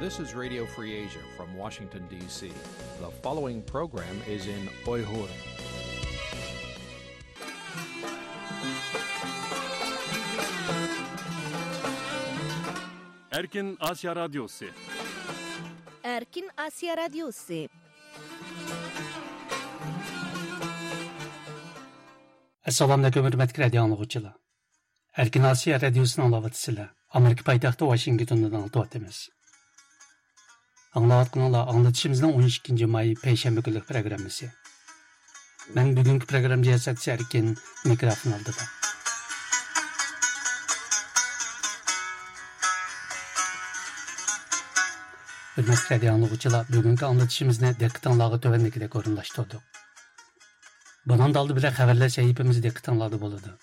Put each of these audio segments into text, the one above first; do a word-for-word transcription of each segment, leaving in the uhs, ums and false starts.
This is Radio Free Asia from Washington, D C. The following program is in Uyghur. Erkin Asiya Radyosu. Erkin Asiya Radyosu. Assalomu alaykum, hurmatli radio anglovchilar. Erkin Asiya Radiosini anglayotibsizlar. Amerika poytaxti Washingtondan anglatyapmiz. Anglayotganinglar anglatishimizning o'n ikkinchi may payshanba kunlik programmasi. Men bugungi programma jiyasatchisi Erkin, mikrofon oldida. Hurmatli radio anglovchilar, bugungi anglatishimizni diqqatingizga tuvandagidek o'rinlashtirdik. Bundan oldi bilan xabarlar sahifamiz diqqatingizda bo'ladi.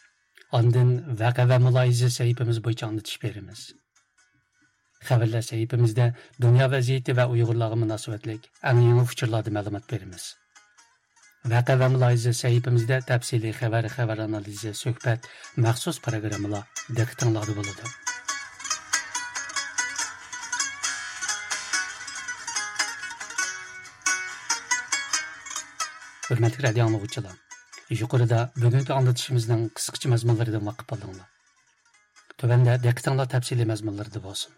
Ondan vaqa va muloyiza sahifamiz bo'yicha anglatish beramiz. Xabarlar sahifamizda dunyo vaziyati va uyg'urlarga munosabatlik eng yangi uchurlarda ma'lumot beramiz. Vaqa va muloyiza sahifamizda tafsiliy xabar, xabar analizi, suhbat, maxsus programmalar diqqatingizda bo'ladi. Hurmatli radio anglovchilar, yuqorida bugungi anglitishimizning qisqacha mazmunlaridan vaqif oldinglar. Tuvanda diqqatinglar tafsiliy mazmunlarda bo'lsin.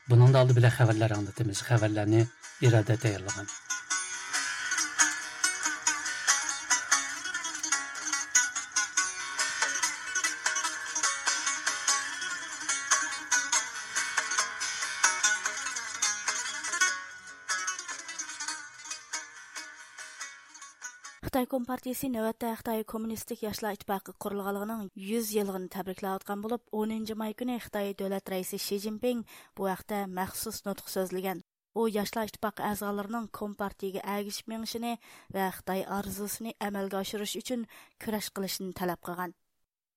Buningda oldi bilan xabarlar anglatamiz. Xabarlarni Iroda tayyorlagan. خىتاي كومپارتىيىسى نۆۋەتتە خىتاي كوممۇنىستىك ياشلار ئىتتىپاقى قۇرۇلغانلىقىنىڭ يۈز يىللىقىنى تەبرىكلەۋاتقان بولۇپ، ئونىنچى ماي كۈنى خىتاي دۆلەت رەئىسى شى جىنپىڭ بۇ ھەقتە مەخسۇس نۇتۇق سۆزلىگەن. ئۇ ياشلار ئىتتىپاقى ئەزالىرىنىڭ كومپارتىيىگە ئەگىشىپ مېڭىشىنى ۋە خىتاي ئارزۇسىنى ئەمەلگە ئاشۇرۇش ئۈچۈن كۈرەش قىلىشىنى تەلەپ قىلغان.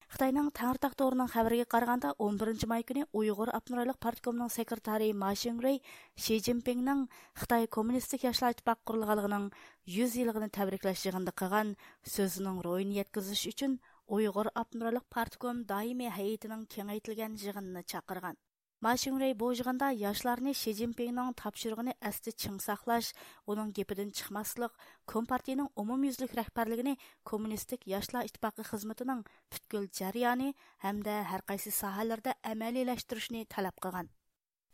خىتاينىڭ تەڭرىتاغ تورىنىڭ خەۋىرىگە قارىغاندا، ئون بىرىنچى ماي كۈنى ئۇيغۇر ئاپتونوم رايونلۇق پارتكومنىڭ سېكرېتارى ما شىڭرۇي شى جىنپىڭنىڭ خىتاي كوممۇنىستىك ياشلار ئىتتىپاقى قۇرۇلغانلىقىنىڭ يۈز يىللىقىنى تەبرىكلەش يىغىنىدا قىلغان سۆزىنىڭ روھىنى يەتكۈزۈش ئۈچۈن ئۇيغۇر ئاپتونوم رايونلۇق پارتكوم دائىمىي ھەيئىتىنىڭ كېڭەيتىلگەن يىغىنىنى چاقىرغان. ما شىڭرۇي بۇ يىغىندا ياشلارنى شى جىنپىڭنىڭ تاپشۇرۇقىنى ئەستە چىڭ ساقلاش، ئۇنىڭ گېپىدىن چىقماسلىق، كومپارتىيىنىڭ ئومۇميۈزلۈك رەھبەرلىكىنى كوممۇنىستىك ياشلار ئىتتىپاقى خىزمىتىنىڭ پۈتكۈل جەريانى ھەمدە ھەرقايسى ساھەلەردە ئەمەلىيلەشتۈرۈشنى تەلەپ قىلغان.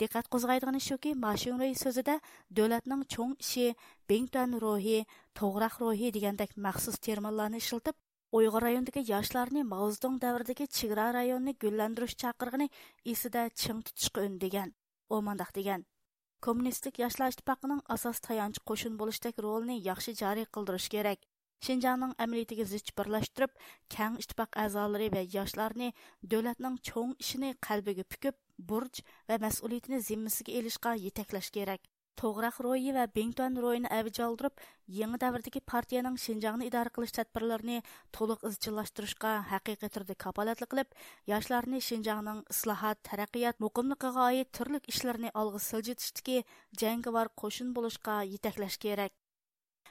دىققەت قوزغايدىغىنى شۇكى، ما شىڭرۇي سۆزىدە دۆلەتنىڭ چوڭ ئىشى، بىڭتۈەن روھى، توغراق روھى دېگەندەك مەخسۇس تېرمىنلارنى ئىشلىتىپ، ئۇيغۇر رايونىدىكى ياشلارنى ماۋزېدۇڭ دەۋرىدىكى چېگرا رايونىنى گۈللەندۈرۈش چاقىرىقىنى ئېسىدە چىڭ تۇتۇشقا ئۈندىگەن. ئۇ مۇنداق دېگەن: كوممۇنىستىك ياشلار ئىتتىپاقىنىڭ ئاساس تايانچ قوشۇن بولۇشتەك رولىنى ياخشى جارى قىلدۇرۇش كېرەك. شىنجاڭنىڭ ئەمەلىيىتىگە زىچ بىرلەشتۈرۈپ، كەڭ ئىتتىپاق ئەزالىرى ۋە ياشلارنى دۆلەتنىڭ چوڭ ئىشىنى قەلبىگە پۈكۈپ، بۇرچ ۋە مەسئۇلىيىتىنى زىممىسىگە ئېلىشقا يېتەكلەش كېرەك. توغراق روھى ۋە بىڭتۈەن روھىنى ئەۋج ئالدۇرۇپ، يېڭى دەۋردىكى پارتىيەنىڭ شىنجاڭنى ئىدارە قىلىش تەدبىرلىرىنى تولۇق ئىزچىللاشتۇرۇشقا ھەقىقىي تۈردە كاپالەتلىك قىلىپ، ياشلارنى شىنجاڭنىڭ ئىسلاھات، تەرەققىيات، مۇقىملىقىغا ئائىت تۈرلۈك ئىشلىرىنى ئالغا سىلجىتىشتىكى جەڭگىۋار قوشۇن بولۇشقا يېتەكلەش كېرەك.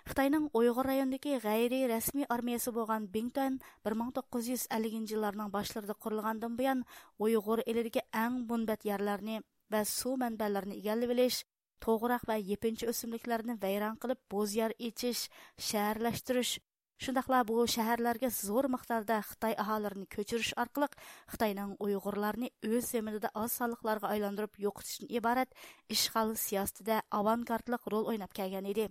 خىتاينىڭ ئۇيغۇر رايونىدىكى غەيرىي رەسمىي ئارمىيەسى بولغان بىڭتۈەن بىر مىڭ توققۇز يۈز ئەللىكىنچى يىللارنىڭ باشلىرىدا قۇرۇلغاندىن بۇيان، ئۇيغۇر ئېلىدىكى ئەڭ مۇنبەت يەرلەرنى ۋە سۇ مەنبەلىرىنى ئىگىلىۋېلىش، توغراق ۋە يېپىنچا ئۆسۈملۈكلەرنى ۋەيران قىلىپ، بوزيەر ئېچىش، شەھەرلەشتۈرۈش، شۇنداقلا بۇ شەھەرلەرگە زور مىقداردا خىتاي ئاھالىلىرىنى كۆچۈرۈش ئارقىلىق خىتاينىڭ ئۇيغۇرلارنى ئۆز زېمىنىدا ئاز سانلىقلارغا ئايلاندۇرۇپ يوقىتىشتىن ئىبارەت ئىشغال سىياسىتىدە ئاۋانگارتلىق رول ئويناپ كەلگەن ئىدى.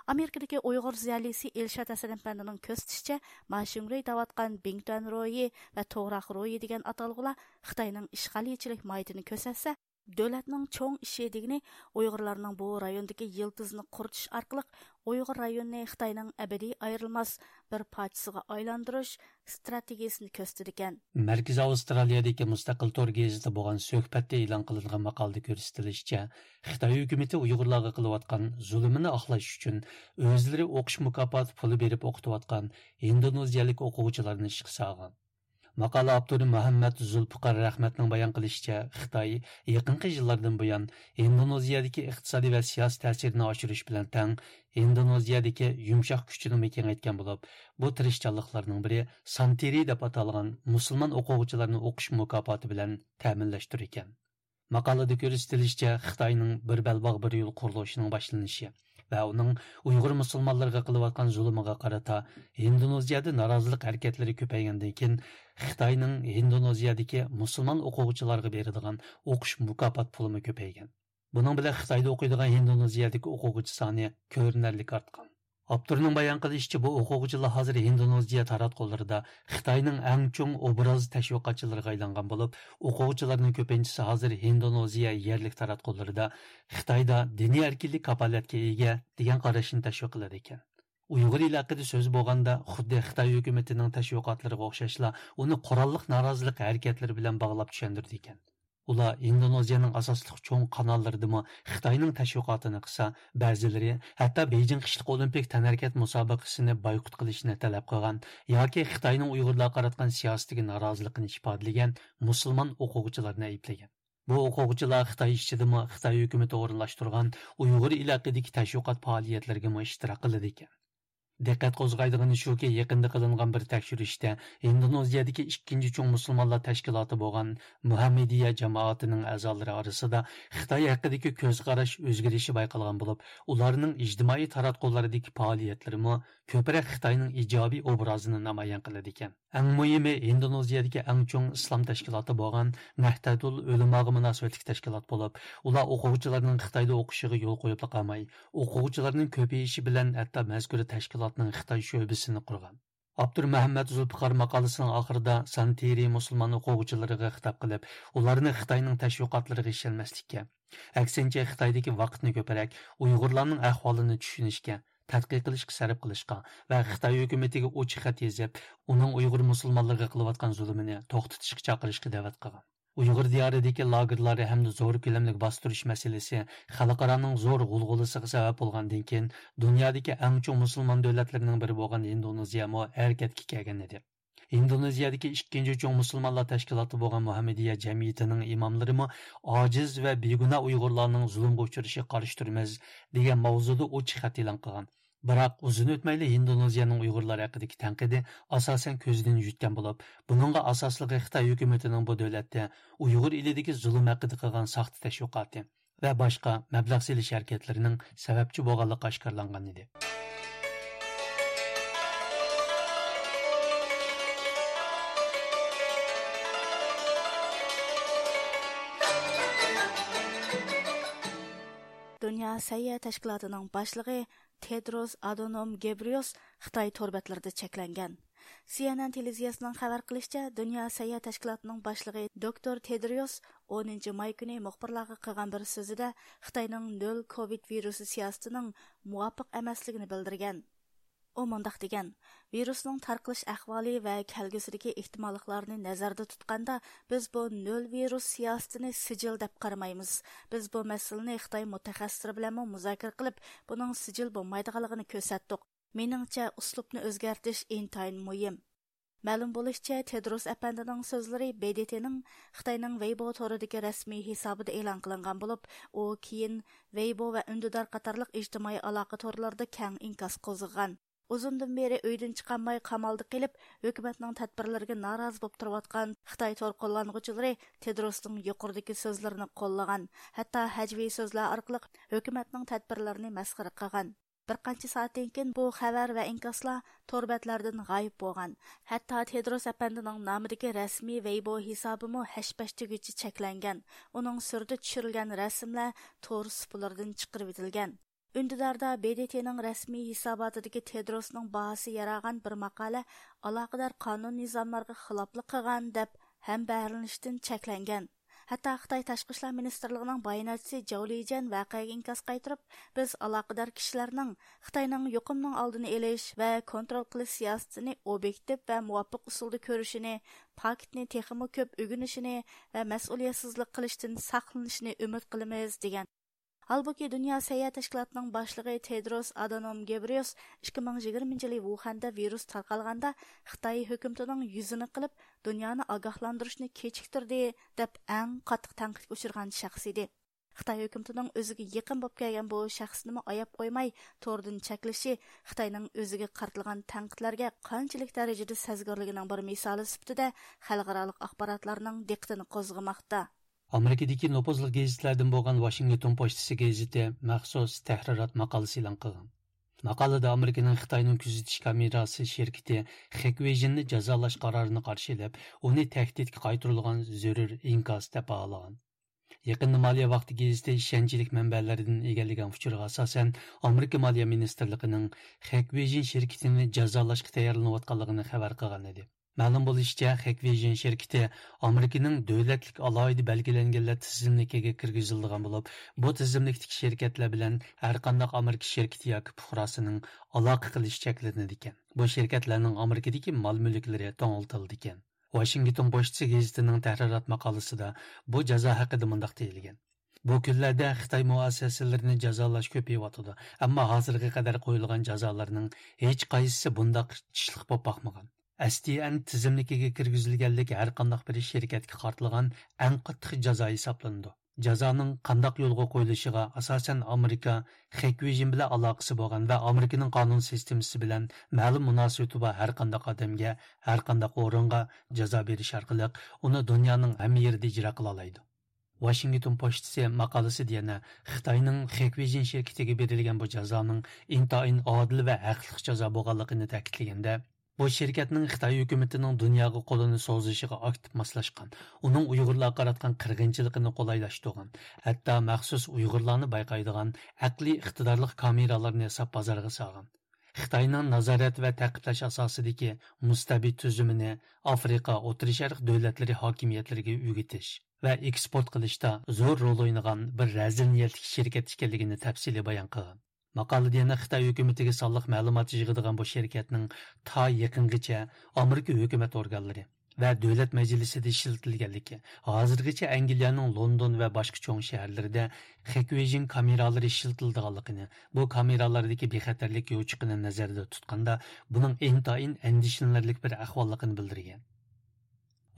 ئامېرىكىدىكى ئۇيغۇر زىيالىيسى ئىلشات ھەسەن ئەپەندىنىڭ كۆرسىتىشىچە، ما شىڭرۇي دەۋاتقان بىڭتۈەن روھى ۋە توغراق روھى دېگەن ئاتالغۇلار خىتاينىڭ ئىشغالىيچىلىك ماھىيىتىنى كۆرسەتسە، دۆلەتنىڭ چوڭ ئىشى دېگىنى ئۇيغۇرلارنىڭ بۇ رايوندىكى يىلتىزىنى قۇرۇتۇش ئارقىلىق ئۇيغۇر رايونىنى خىتاينىڭ ئەبەدىي ئايرىلماس بىر پارچىسىغا ئايلاندۇرۇش ئىستراتېگىيىسىنى كۆرسىتىدىكەن. مەركىزىي ئاۋسترالىيەدىكى مۇستەقىل تور گېزىتىدە بولغان سۆھبەتتە ئېلان قىلىنغان ماقالىدە كۆرسىتىلىشىچە، خىتاي ھۆكۈمىتى ئۇيغۇرلارغا قىلىۋاتقان زۇلۇمىنى ئاقلاش ئۈچۈن ئۆزلىرى ئوقۇش مۇكاپاتى پۇلى بېرىپ ئوقۇتۇۋاتقان ئىندونېزىيەلىك ئوقۇغۇچىلارنى ئىشقا سالغان. ماقالە ئاپتورى مۇھەممەد زۇلپىقار رەھمەتنىڭ بايان قىلىشىچە، خىتاي يېقىنقى يىللاردىن بۇيان ئىندونېزىيەدىكى ئىقتىسادىي ۋە سىياسىي تەسىرىنى ئاشۇرۇش بىلەن تەڭ، ئىندونېزىيەدىكى يۇمشاق كۈچىنىمۇ كېڭەيتكەن بولۇپ، بۇ تىرىشچانلىقلارنىڭ بىرى سانتىرى دەپ ئاتالغان مۇسۇلمان ئوقۇغۇچىلارنى ئوقۇش مۇكاپاتى بىلەن تەمىنلەشتۇر ئىكەن. ماقالىدە كۆرسىتىلىشىچە، خىتاينىڭ بىر بەلباغ بىر يول قۇرۇلۇشىنىڭ باشلىنىشى ۋە ئۇنىڭ ئۇيغۇر مۇسۇلمانلىرىغا قىلىۋاتقان زۇلۇمىغا قارىتا ھىندونېزىيەدە نارازىلىق ھەرىكەتلىرى كۆپەيگەندىن كېيىن، خىتاينىڭ ھىندونېزىيەدىكى مۇسۇلمان ئوقۇغۇچىلارغا بېرىدىغان ئوقۇش مۇكاپات پۇلىمۇ كۆپەيگەن. بۇنىڭ بىلەن خىتايدا ئوقۇيدىغان ھىندونېزىيەدىكى ئوقۇغۇچى سانى كۆرۈنەرلىك ئارتقان. ئاپتورنىڭ بايان قىلىشىچە، بۇ ئوقۇغۇچىلار ھازىر ھىندونېزىيە تاراتقۇلىرىدا خىتاينىڭ ئەڭ چوڭ ئوبراز تەشۋىقاتچىلىرىغا ئايلانغان بولۇپ، ئوقۇغۇچىلارنىڭ كۆپىنچىسى ھازىر ھىندونېزىيە يەرلىك تاراتقۇلىرىدا خىتايدا دىنىي ئەركىنلىك كاپالەتكە ئىگە دېگەن قاراشنى تەشۋىق قىلىدىكەن. ئۇيغۇر ئېلى ھەققىدە سۆز بولغاندا، خۇددى خىتاي ھۆكۈمىتىنىڭ تەشۋىقاتلىرىغا ئوخشاشلا، ئۇنى قوراللىق نارازىلىق ھەرىكەتلىرى بىلەن باغلاپ چۈشەندۈرىدىكەن. ئۇلار ئىندونېزىيەنىڭ ئاساسلىق چوڭ قاناللىرىدىمۇ خىتاينىڭ تەشۋىقاتىنى قىلسا، بەزىلىرى ھەتتا بېيجىڭ قىشلىق ئولىمپىك تەنھەرىكەت مۇسابىقىسىنى بايقۇت قىلىشنى تەلەپ قىلغان ياكى خىتاينىڭ ئۇيغۇرلارغا قاراتقان سىياسىتىگە نارازىلىقىنى ئىپادىلىگەن مۇسۇلمان ئوقۇغۇچىلارنى ئەيىبلىگەن. بۇ ئوقۇغۇچىلار خىتاي ئىچىدىمۇ خىتاي ھۆكۈمىتى ئورۇنلاشتۇرغان ئۇيغۇر ئېلى ھەققىدىكى تەشۋىقات پائالىيەتلىرىگىمۇ ئىشتىراك قىلىدىكەن. دىققەت قوزغايدىغىنى شۇكى، يېقىندا قىلىنغان بىر تەكشۈرۈشتە، ئىندونېزىيەدىكى ئىككىنچى چوڭ مۇسۇلمانلار تەشكىلاتى بولغان مۇھەممىدىيە جامائىتىنىڭ ئەزالىرى ئارىسىدا خىتاي ھەققىدىكى كۆز قاراش ئۆزگىرىشى بايقالغان بولۇپ، ئۇلارنىڭ ئىجتىمائىي تاراتقۇلىرىدىكى پائالىيەتلىرىمۇ كۆپرەك خىتاينىڭ ئىجابىي ئوبرازىنى نامايان قىلىدىكەن. ئەڭ مۇھىمى، ئىندونېزىيەدىكى ئەڭ چوڭ ئىسلام تەشكىلاتى بولغان نەھدەتۇل ئۆلىماغا مۇناسىۋەتلىك تەشكىلات بولۇپ، ئۇلار ئوقۇغۇچىلارنىڭ خىتايدا ئوقۇشىغا يول قويۇپلا قالماي، ئوقۇغۇچىلارنىڭ كۆپىيىشى بىلەن ھەتتا مەزكۇر تەشكىلاتنىڭ خىتاي شۆبىسىنى قۇرغان. ئاپتور مەھەممەت زۇلپىقار ماقالىسىنىڭ ئاخىرىدا سانتىرى مۇسۇلمان ئوقۇغۇچىلىرىغا خىتاب قىلىپ، ئۇلارنى خىتاينىڭ تەشۋىقاتلىرىغا ئىشەنمەسلىككە، ئەكسىنچە، خىتايدىكى ۋاقىتنى كۆپرەك ئۇيغۇرلارنىڭ ئەھۋالىنى چۈشىنىشكە، تەتقىق قىلىشقا سەرپ قىلىشقا ۋە خىتاي ھۆكۈمىتىگە ئوچۇق خەت يېزىپ، ئۇنىڭ ئۇيغۇر مۇسۇلمانلىرىغا قىلىۋاتقان زۇلۇمىنى توختىتىشقا چاقىرىشقا دەۋەت قىلغان. ئۇيغۇر دىيارىدىكى لاگېرلار ھەمدە زور كۆلەملىك باستۇرۇش مەسىلىسى خەلقئارانىڭ زور غۇلغۇلىسىغا سەۋەب بولغاندىن كېيىن، دۇنيادىكى ئەڭ چوڭ مۇسۇلمان دۆلەتلىرىنىڭ بىرى بولغان ھىندونېزىيەمۇ ھەرىكەتكە كەلگەن ئىدى. ھىندونېزىيەدىكى ئىككىنچى چوڭ مۇسۇلمانلار تەشكىلاتى بولغان مۇھەممىدىيە جەمئىيىتىنىڭ ئىماملىرىمۇ ئاجىز ۋە بىگۇناھ ئۇيغۇرلارنىڭ زۇلۇمغا ئۇچرىشىغا قارشى تۇرىمىز دېگەن ماۋزۇدا ئوچۇق خەت ئېلان قىلغان. بىراق، ئۇزۇن ئۆتمەيلا ھىندونېزىيەنىڭ ئۇيغۇرلار ھەققىدىكى تەنقىدى ئاساسەن كۆزدىن يۈتكەن بولۇپ، بۇنىڭغا ئاساسلىقى خىتاي ھۆكۈمىتىنىڭ بۇ دۆلەتتە ئۇيغۇر ئېلىدىكى زۇلۇم ھەققىدە قىلغان ساختا تەشۋىقاتى ۋە باشقا مەبلەغ سېلىش ھەرىكەتلىرىنىڭ سەۋەبچى بولغانلىقى ئاشكارىلانغان ئىدى. دۇنيا سەھىيە تەشكىلاتىنىڭ باشلىقى تېدروس ئادونوم گېبرىيوس خىتاي تور بەتلىرىدە چەكلەنگەن. سى ئېن ئېن تېلېۋىزىيەسىنىڭ خەۋەر قىلىشىچە، دۇنيا سەھىيە تەشكىلاتىنىڭ باشلىقى دوكتور تېدرىيوس ئونىنچى ماي كۈنى مۇخبىرلارغا قىلغان بىر سۆزىدە خىتاينىڭ نۆل كوۋىد ۋىرۇسى سىياسىتىنىڭ مۇۋاپىق ئەمەسلىكىنى بىلدۈرگەن. ئۇ مۇنداق دېگەن: «ۋىرۇسنىڭ تارقىلىش ئەھۋالى ۋە كەلگۈسىدىكى ئېھتىماللىقلارنى نەزەردە تۇتقاندا، بىز بۇ نۆل ۋىرۇس سىياسىتىنى سىجىل دەپ قارىمايمىز. بىز بۇ مەسىلىنى خىتاي مۇتەخەسسىسلىرى بىلەنمۇ مۇزاكىرە قىلىپ، بۇنىڭ سىجىل بولمايدىغانلىقىنى كۆرسەتتۇق. مېنىڭچە، ئۇسلۇبنى ئۆزگەرتىش ئىنتايىن مۇھىم.» مەلۇم بولۇشىچە، تېدروس ئەپەندىنىڭ سۆزلىرى ب د ت نىڭ خىتاينىڭ ۋېيبو تورىدىكى رەسمىي ھېسابىدا ئېلان قىلىنغان بولۇپ، ئۇ كېيىن ۋېيبو ۋە ئۈندىدار قاتارلىق ئىجتىمائىي ئالاقە تورلىرىدا كەڭ ئىنكاس قوزغىغان. ئۇزۇندىن بېرى ئۆيدىن چىقالماي قامالدا قېلىپ، ھۆكۈمەتنىڭ تەدبىرلىرىگە نارازى بولۇپ تۇرۇۋاتقان خىتاي تور قوللانغۇچىلىرى تېدروسنىڭ يۇقىرىدىكى سۆزلىرىنى قوللىغان، ھەتتا ھەجۋىي سۆزلەر ئارقىلىق ھۆكۈمەتنىڭ تەدبىرلىرىنى مەسخىرە قىلغان. بىر قانچە سائەتتىن كېيىن بۇ خەۋەر ۋە ئىنكاسلار تور بەتلەردىن غايىب بولغان. ھەتتا تېدروس ئەپەندىنىڭ نامىدىكى رەسمىي ۋېيبو ھېسابىمۇ ھەش-پەش دېگۈچە چەكلەنگەن. ئۇنىڭ سۈرىتى چۈشۈرۈلگەن رەسىملەر تور سۇپىلىرىدىن چىقىرىۋېتىلگەن. ئۈندىداردا ب د ت نىڭ رەسمىي ھېساباتىدىكى تېدروسنىڭ باھاسى يارىغان بىر ماقالە ئالاقىدار قانۇن نىزاملارغا خىلاپلىق قىلغان دەپ ھەمبەھىرلىنىشتىن چەكلەنگەن. ھەتتا خىتاي تاشقى ئىشلار مىنىستىرلىقىنىڭ باياناتچىسى جاۋ لىجيەن ۋەقەگە ئىنكاس قايتۇرۇپ، بىز ئالاقىدار كىشىلەرنىڭ خىتاينىڭ يۇقۇمنىڭ ئالدىنى ئېلىش ۋە كونترول قىلىش سىياسىتىنى ئوبيېكتىپ ۋە مۇۋاپىق ئۇسۇلدا كۆرۈشىنى، پاكىتنى تېخىمۇ كۆپ ئۆگىنىشىنى ۋە مەسئۇلىيەتسىزلىك قىلىشتىن ساقلىنىشىنى ئۈمىد قىلىمىز، دېگەن. ھالبۇكى، دۇنيا سەھىيە تەشكىلاتىنىڭ باشلىقى تېدروس ئادانوم گېبرىيوس ئىككى مىڭ يىگىرمىنچى يىلى ۋۇخەندە ۋىرۇس تارقالغاندا خىتاي ھۆكۈمىتىنىڭ يۈزىنى قىلىپ، دۇنيانى ئاگاھلاندۇرۇشنى كېچىكتۈردى، دەپ ئەڭ قاتتىق تەنقىدكە ئۇچرىغان شەخس ئىدى. خىتاي ھۆكۈمىتىنىڭ ئۆزىگە يېقىن بولۇپ كەلگەن بۇ شەخسىنىمۇ ئاياپ قويماي، توردىن چەكلىشى خىتاينىڭ ئۆزىگە قارىتىلغان تەنقىدلەرگە قانچىلىك دەرىجىدە سەزگۈرلۈكىنىڭ بىر مىسالى سۈپىتىدە خەلقئارالىق ئاخباراتلارنىڭ دىققىتىنى قوزغىماقتا. ئامېرىكىدىكى نوپۇزلۇق گېزىتلەردىن بولغان ۋاشىنگتون پوچتىسى گېزىتى مەخسۇس تەھرىرات ماقالىسى ئېلان قىلغان. ماقالىدە ئامېرىكىنىڭ خىتاينىڭ كۆزىتىش كامېراسى شىركىتى خېكۋېيجىننى جازالاش قارارىنى قارشى ئېلىپ، ئۇنى تەھدىتكە قايتۇرۇلغان زۆرۈر ئىنكاس دەپ باھالىغان. يېقىندا مالىيە ۋاقتى گېزىتى ئىشەنچلىك مەنبەلەردىن ئىگىلىگەن ئۇچۇرغا ئاساسەن، ئامېرىكا مالىيە مىنىستىرلىقىنىڭ خېكۋېيجىن شىركىتىنى جازالاشقا تەييارلىنىۋاتقانلىقىنى خەۋەر قىلغان ئىدى. مەلۇم بولۇشىچە، خېكۋېيجىن شىركىتى ئامېرىكىنىڭ دۆلەتلىك ئالاھىدە بەلگىلەنگەنلەر تىزىملىكىگە كىرگۈزۈلىدىغان بولۇپ، بۇ تىزىملىكتىكى شىركەتلەر بىلەن ھەرقانداق ئامېرىكا شىركىتى ياكى پۇقراسىنىڭ ئالاقە قىلىشى چەكلىنىدىكەن. بۇ شىركەتلەرنىڭ ئامېرىكىدىكى مال-مۈلۈكلىرى توڭلىتىلىدىكەن. ۋاشىنگتون پوچتىسى گېزىتىنىڭ تەھرىرات ماقالىسىدا بۇ جازا ھەققىدە مۇنداق دېيىلگەن: بۇ كۈنلەردە خىتاي مۇئەسسەسىلىرىنى جازالاش كۆپىيىۋاتىدۇ، ئەمما ھازىرغا قەدەر قويۇلغان جازالارنىڭ ھېچقايسىسى بۇنداق كۈچلۈك بولۇپ باقمىغان. ئەس تى ئەن تىزىملىكىگە كىرگۈزۈلگەنلىك ھەرقانداق بىر شىركەتكە قارىتىلغان ئەڭ قاتتىق جازا ھېسابلىنىدۇ. جازانىڭ قانداق يولغا قويۇلۇشىغا ئاساسەن، ئامېرىكا خېكۋېيجىن بىلەن ئالاقىسى بولغان ۋە ئامېرىكىنىڭ قانۇن سىستېمىسى بىلەن مەلۇم مۇناسىۋىتى بار ھەرقانداق ئادەمگە، ھەرقانداق ئورۇنغا جازا بېرىش ئارقىلىق ئۇنى دۇنيانىڭ ھەممە يېرىدە ئىجرا قىلالايدۇ. ۋاشىنگتون پوچتىسى ماقالىسىدە يەنە خىتاينىڭ خېكۋېيجىن شىركىتىگە بېرىلگەن بۇ جازانىڭ ئىنتايىن ئادىل ۋە ھەقلىق جازا بولغانلىقىنى تەكىتلىگەندە، بۇ شىركەتنىڭ خىتاي ھۆكۈمىتىنىڭ دۇنياغا قولىنى سوزۇشىغا ئاكتىپ ماسلاشقان، ئۇنىڭ ئۇيغۇرلارغا قاراتقان قىرغىنچىلىقىنى قولايلاشتۇرغان، ھەتتا مەخسۇس ئۇيغۇرلارنى بايقايدىغان ئەقلىي ئىقتىدارلىق كامېرالارنى ياساپ بازارغا سالغان. خىتاينىڭ نازارەت ۋە تەقىبلەش ئاساسىدىكى مۇستەبىت تۈزۈمىنى ئافرىقا، ئوتتۇرا شەرق دۆلەتلىرى ھاكىمىيەتلىرىگە ئۆگىتىش ۋە ئېكسپورت قىلىشتا زور رول ئوينىغان بىر رەزىل نىيەتلىك شىركەت ئىكەنلىكىنى تەپسىلىي بايان قىلغان. ماقالىدە يەنە خىتاي ھۆكۈمىتىگە سانلىق مەلۇمات يىغىدىغان بۇ شىركەتنىڭ تا يېقىنغىچە ئامېرىكا ھۆكۈمەت ئورگانلىرى ۋە دۆلەت مەجلىسىدە ئىشلىتىلگەنلىكى، ھازىرغىچە ئەنگلىيەنىڭ لوندون ۋە باشقا چوڭ شەھەرلىرىدە خېكۋېيجىن كامېرالىرى ئىشلىتىلىدىغانلىقىنى، بۇ كامېرالاردىكى بىخەتەرلىك يوچۇقىنى نەزەردە تۇتقاندا، بۇنىڭ ئىنتايىن ئەندىشىلىنەرلىك بىر ئەھۋاللىقىنى بىلدۈرگەن.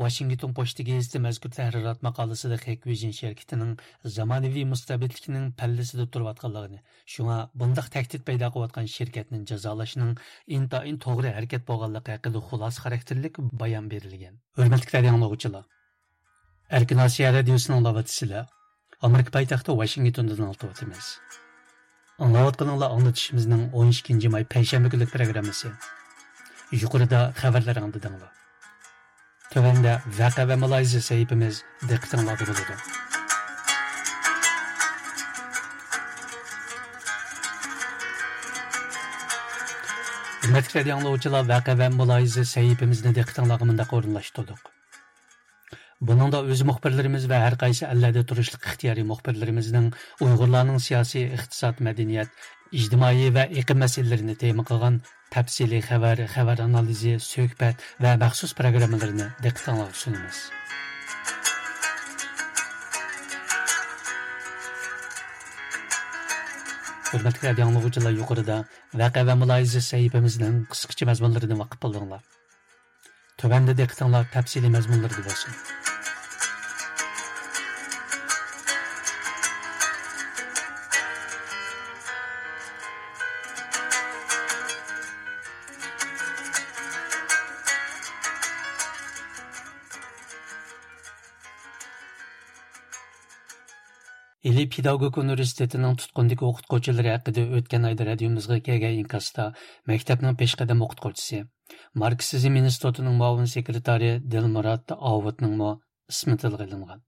ۋاشىنگتون پوچتا گېزىتى مەزكۇر تەھرىرات ماقالىسىدە خېكۋېيجىن شىركىتىنىڭ زامانىۋى مۇستەبىتلىكنىڭ پەللىسىدە تۇرۇۋاتقانلىقىنى، شۇڭا بۇنداق تەھدىت پەيدا قىلىۋاتقان شىركەتنى جازالاشنىڭ ئىنتايىن توغرا ھەرىكەت بولغانلىقى ھەققىدە خۇلاسە خاراكتېرلىك بايان بېرىلگەن. ھۆرمەتلىك رادىئو ئاڭلىغۇچىلار، ئەركىن ئاسىيا رادىيوسىنى ئاڭلاۋاتىسىلەر. ئامېرىكا پايتەختى ۋاشىنگتوندىن ئاڭلىتىۋاتىمىز. ئاڭلاۋاتقىنىڭلار ئاڭلىتىشىمىزنىڭ ئون ئىككىنچى ماي پەيشەنبە كۈنلۈك پروگراممىسى. يۇقىرىدا خەۋەرلەر ئاڭلىدىڭلار. تۆۋەندە ۋەقە ۋە مۇلاھىزە سەھىپىمىز دىققىتىڭلاردا بولىدۇ. ھۆرمەتلىك رادىئو ئاڭلىغۇچىلار، ۋەقە ۋە مۇلاھىزە سەھىپىمىزنى دىققىتىڭلارغا مۇنداق ئورۇنلاشتۇردۇق. بۇنىڭدا ئۆز مۇخبىرلىرىمىز ۋە ھەر قايسى ئەللەردە تۇرۇشلۇق ئىختىيارىي مۇخبىرلىرىمىزنىڭ ئۇيغۇرلارنىڭ سىياسىي، ئىقتىساد، مەدەنىيەت، ئىجتىمائىي ۋە ئېقىم مەسىلىلىرىنى تېما قىلغان تەپسىلىي خەۋەر، خەۋەر ئانالىزى، سۆھبەت ۋە مەخسۇس پروگراممىلىرىنى دىققىتىڭلارغا سۇنىمىز. ھۆرمەتلىك رادىئو ئاڭلىغۇچىلار، يۇقىرىدا ۋەقە ۋە مۇلاھىزە سەھىپىمىزنىڭ قىسقىچە مەزمۇنلىرىدىن ۋاقىپ بولدۇڭلار. تۆۋەندە دىققىتىڭلار تەپسىلىي مەزمۇنلىرىدا بولسۇن. ئىلى پېداگوگىكا ئۇنىۋېرسىتېتىنىڭ تۇتقۇندىكى ئوقۇتقۇچىلىرى ھەققىدە ئۆتكەن ئايدا رادىيومىزغا كەلگەن ئىنكاستا مەكتەپنىڭ پېشقەدەم ئوقۇتقۇچىسى، ماركسىزم ئىنستىتۇتىنىڭ مۇئاۋىن سېكرېتارى دىلمۇرات ئاۋۇتنىڭمۇ ئىسمى تىلغا ئېلىنغان.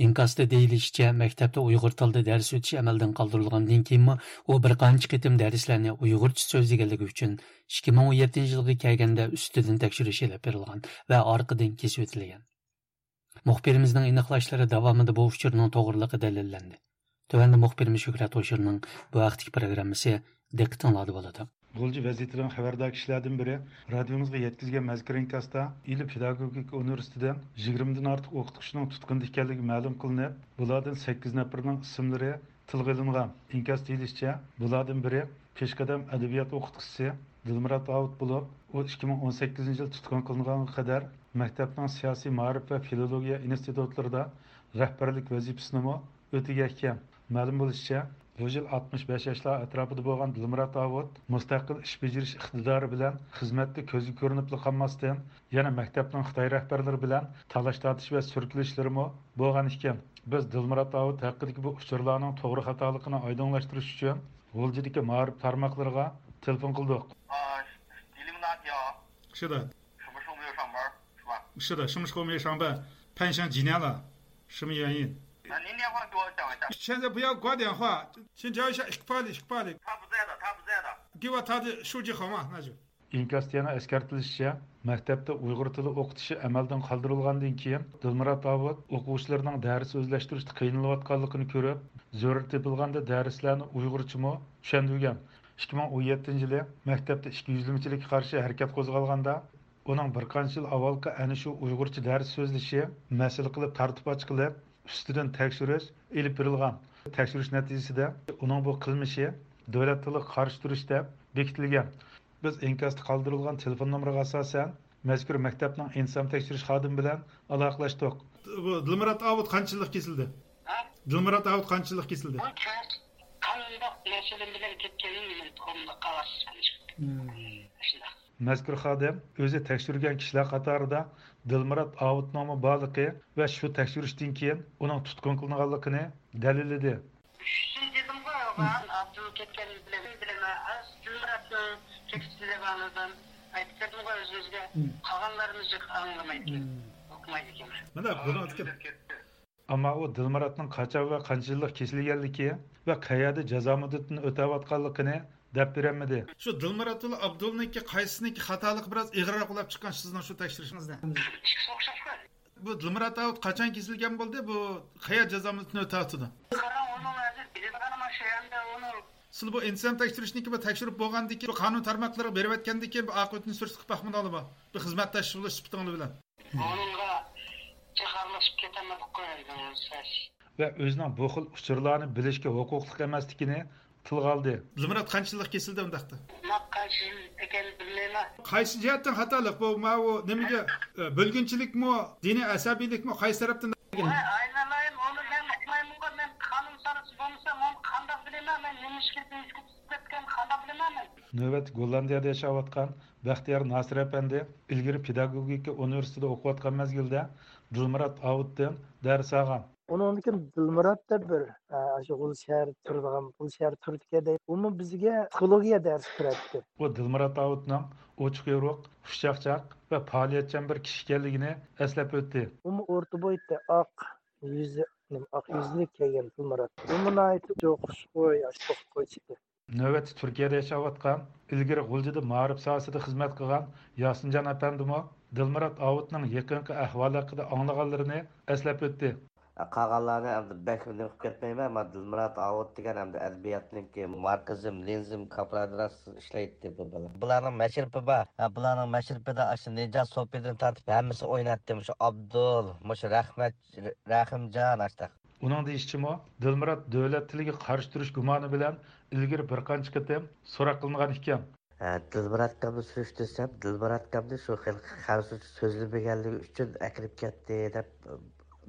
ئىنكاستا دېيىلىشىچە، مەكتەپتە ئۇيغۇر تىلىدا دەرس ئۆتۈش ئەمەلدىن قالدۇرۇلغاندىن كېيىنمۇ ئۇ بىر قانچە قېتىم دەرسلەرنى ئۇيغۇرچە سۆزلىگەنلىكى ئۈچۈن، ئىككى مىڭ ئون يەتتىنچى يىلغا كەلگەندە ئۈستىدىن تەكشۈرۈش ئېلىپ بېرىلغان ۋە ئارقىدىن كېسىۋېتىلگەن. مۇخبىرىمىزنىڭ ئېنىقلاشلىرى داۋامىدا بۇ ئۇچۇرنىڭ توغرىلىقى دەلىللەندى. تۆۋەندە مۇخبىرىمىز شۆھرەت ھوشۇرنىڭ بۇ ھەقتىكى پروگراممىسى دىققىتىڭلاردا بولىدۇ. غۇلجا ۋەزىيىتىدىن خەۋەردار كىشىلەردىن بىرى رادىيومىزغا يەتكۈزگەن مەزكۇر ئىنكاستا، ئىلى پېداگوگىكا ئۇنىۋېرسىتېتىدىن يىگىرمىدىن ئارتۇق ئوقۇتقۇچىنىڭ تۇتقۇندا ئىكەنلىكى مەلۇم قىلىنىپ، بۇلاردىن سەككىز نەپىرىنىڭ ئىسىملىرى تىلغا ئېلىنغان. ئىنكاس دېيىلىشىچە، بۇلاردىن بىرى پېشقەدەم ئەدەبىيات ئوقۇتقۇچىسى دىلمۇرات داۋۇت بولۇپ، ئۇ ئىككى مىڭ ئون سەككىزىنچى يىل تۇتقۇن قىلىنغانغا قەدەر مەكتەپنىڭ سىياسىي مائارىپ ۋە فىلولوگىيە ئىنستىتۇتلىرىدا رەھبەرلىك ۋەزىپىسىنىمۇ ئۆتىگەن ئىكەن. مەلۇم بولۇشىچە، بۇ يىل ئاتمىش بەش ياشلار ئەتراپىدا بولغان دىلمۇرات ئاۋۇت مۇستەقىل ئىش بېجىرىش ئىقتىدارى بىلەن خىزمەتتە كۆزگە كۆرۈنۈپلا قالماستىن، يەنە مەكتەپنىڭ خىتاي رەھبەرلىرى بىلەن تالاش-تارتىش ۋە سۈركىلىشلىرىمۇ بولغان ئىكەن. بىز دىلمۇرات ئاۋۇت ھەققىدىكى بۇ ئۇچۇرلارنىڭ توغرا-خاتالىقىنى ئايدىڭلاشتۇرۇش ئۈچۈن غۇلجىدىكى مائارىپ تارماقلىرىغا تېلېفون قىلدۇق. 啊，吉林大学 是的，什么时候没有上班，是吧？是的，什么时候没有上班？攀上几年了，什么原因？那您电话给我讲一下。现在不要挂电话，先聊一下 ئىككى پائىللىك، ئىككى پائىللىك. 他不在的，他不在的。 给我他的手机号码，那就。 ئىنكاستا يەنە ئەسكەرتىلىشىچە، مەكتەپتە ئۇيغۇر تىلى ئوقۇتۇشى ئەمەلدىن قالدۇرۇلغاندىن كېيىن، دىلمۇرات ئاۋۇت ئوقۇغۇچىلىرىنىڭ دەرس ئۆزلەشتۈرۈشتە قىينىلىۋاتقانلىقىنى كۆرۈپ، زۆرۈر تېپىلغاندا دەرسلەرنى ئۇيغۇرچىمۇ چۈشەندۈرگەن. ئىككى مىڭ ئون يەتتىنچى يىلى مەكتەپتە ئىككى يۈزلىمىچىلىككە قارشى ھەرىكەت قوزغالغاندا، ئۇنىڭ بىر قانچە يىل ئاۋۋالقى ئەنە شۇ ئۇيغۇرچە دەرس سۆزلىشى مەسىلە قىلىپ تارتىپ ئاچقىلى، ئۈستىدىن تەكشۈرۈش ئېلىپ بېرىلغان. تەكشۈرۈش نەتىجىسىدە ئۇنىڭ بۇ قىلمىشى دۆلەت تىلىغا قارشى تۇرۇش دەپ بېكىتىلگەن. بىز ئىنكاستا قالدۇرۇلغان تېلېفون نومۇرىغا ئاساسەن، مەزكۇر مەكتەپنىڭ ئىنتىزام تەكشۈرۈش خادىمى بىلەن ئالاقىلەشتۇق. بۇ دىلمۇرات ئاۋۇت قانچە يىللىق كېسىلدى؟ دىلمۇرات ئاۋۇت قانچە يىللىق كېسىلدى؟ قانداق مەسىلە بىلەن كەتكىنىنى مەن ئۇقمىدىم، قاغاز شۇنداق. مەزكۇر خادىم ئۆزى تەكشۈرگەن كىشىلەر قاتارىدا دىلمۇرات ئاۋۇتنىڭمۇ بارلىقى ۋە شۇ تەكشۈرۈشتىن كېيىن ئۇنىڭ تۇتقۇن قىلىنغانلىقىنى دەلىللىدى. شۇنى دېدىمغۇ، مەن ئابدۇل كەتكەن بىلەن بىلەمەن، دىلمۇراتنىڭ كېسىلىگەنلىكىنى ئايتىپ بەردىمغۇ ئۆزىمىزگە. قالغانلىرىمىز جىق ئاڭلىمايدىكەن، ئۇقمايدىكەن. مانا بۇنىڭ ئەمما ئۇ دىلمۇراتنىڭ قاچان ۋە قانچە يىللىق كېسىلگەنلىكى ۋە قەيەردە جازا مۇددىتىنى ئۆتەۋاتقانلىقىنى دەپ بېرەلمىدى. شۇ دىلمۇرات ۋە ئابدۇلنىڭكى قايسىنىڭكى خاتالىقى بىراز ئېغىرراق بولۇپ چىققان سىزنىڭ شۇ تەكشۈرۈشىڭىزدە؟ ئىككىسى ئوخشاشقۇ. بۇ دىلمۇرات ئاۋۇت قاچان كېسىلگەن بولدى؟ بۇ قەيەر جازا مۇددىتىنى ئۆتەۋاتىدۇ؟ قاراڭ، ئۇنىڭ ھازىر بىلىدىغىنىم شۇ، ئەمدى ئۇنىڭ سىلەر بۇ ئىنتىزام تەكشۈرۈشنىڭكى بۇ تەكشۈرۈپ بولغاندىن كېيىن، بۇ قانۇن تارماقلىرىغا بېرىۋەتكەندىن كېيىن بۇ ئاقىۋىتىنى سۈرۈشتە قىلىپ باقمىدىڭلارمۇ؟ بۇ خىزمەتداش بولۇش سۈپىتىڭلار بىلەن. ئۇنىڭغا جاكارلىشىپ كېتەلمىدۇق قويايلى سەس. ۋە ئۆزىنىڭ بۇ خىل ئۇچۇرلارنى بىلىشكە ھوقۇقلۇق ئەمەسلىكىنى تىلغا ئالدى. دىلمۇرات قانچە يىللىق كېسىلدى ئۇنداقتا؟ مانا قانچە يىل ئىكەنلىكىنى بىلمەيمەن. قايسى جەھەتتىن خاتالىق بۇ؟ ماۋۇ نېمىگە، ئە، بۆلگۈنچىلىكمۇ، دىنىي ئەسەبىيلىكمۇ، قايسى تەرەپتىن؟ ۋاي ئاينالايىم، ئۇنى مەن ئۇقمايمەنغۇ، مەن قانۇن سارىسى بولمىسام ئۇنى قانداق بىلىمەن؟ مەن نېمە ئىشقا تۈشۈپ كەتكەن قانداق بىلىمەن مەن؟ نۆۋەتتە گوللاندىيەدە ياشاۋاتقان بەختىيار ناسىر ئەپەندى ئىلگىرى پېداگوگىكا ئۇنىۋېرسىتېتىدا ئوقۇۋاتقان مەزگىلدە دىلمۇرات ئاۋۇتتىن دەرس ئالغان. ئۇنىڭدىن كېيىن دىلمۇرات دەپ بىر، ئە، ئاشۇ غۇلجا شەھەر تۇرىدىغان، غۇلجا شەھەر تۈرىدىكەن دەيدۇ. ئۇمۇ بىزگە پسىخولوگىيە دەرسى بېرەتتى. ئۇ دىلمۇرات ئاۋۇتنىڭ ئوچۇق يورۇق، خۇشچاقچاق ۋە پائالىيەتچان بىر كىشى ئىكەنلىكىنى ئەسلەپ ئۆتتى. ئۇمۇ ئورتا بويتى، ئاق يۈزى، نېمە، ئاق يۈزلۈك كەلگەن دىلمۇرات. ئۇمۇ ناھايىتى خۇشخۇي، ئاشۇ قويچىكى. نۆۋەتتە تۈركىيەدە ياشاۋاتقان، ئىلگىرى غۇلجىدا مائارىپ ساھەسىدە خىزمەت قىلغان ياسىنجان ئەپەندىمۇ دىلمۇرات ئاۋۇتنىڭ يېقىنقى ئەھۋالى ھەققىدە ئاڭلىغانلىرىنى ئەسلەپ ئۆتتى. قالغانلارنى ئەمدى بەك نېمە قىلىپ كەتمەيمەن، مانا دىلمۇرات ئاۋۇت دېگەن ئەمدى ئەدەبىياتنىڭكى ماركسىزم، لېنىنىزم كاپىرادىراس ئىشلەيتتى بۇ بالا. بۇلارنىڭ مەشرىپى بار. ھە، بۇلارنىڭ مەشرىپىدە ئاشۇ نىجات سوپىدىن تارتىپ ھەممىسى ئوينايتتى. مۇشۇ ئابدۇل، مۇشۇ رەھمەت، رەھىمجان ئاشتاق. ئۇنىڭ دېيىشىچىمۇ، دىلمۇرات دۆلەت تىلىگە قارشى تۇرۇش گۇمانى بىلەن ئىلگىرى بىر قانچە قېتىم سوراق قىلىنغان ئىكەن. ھە، دىلمۇراتكامنى سۈرۈشتۈرسەم، دىلمۇراتكامنى شۇ خېلى خەنزۇچە سۆزلىمىگەنلىكى ئۈچۈن ئەكىرىپ كەتتى دەپ،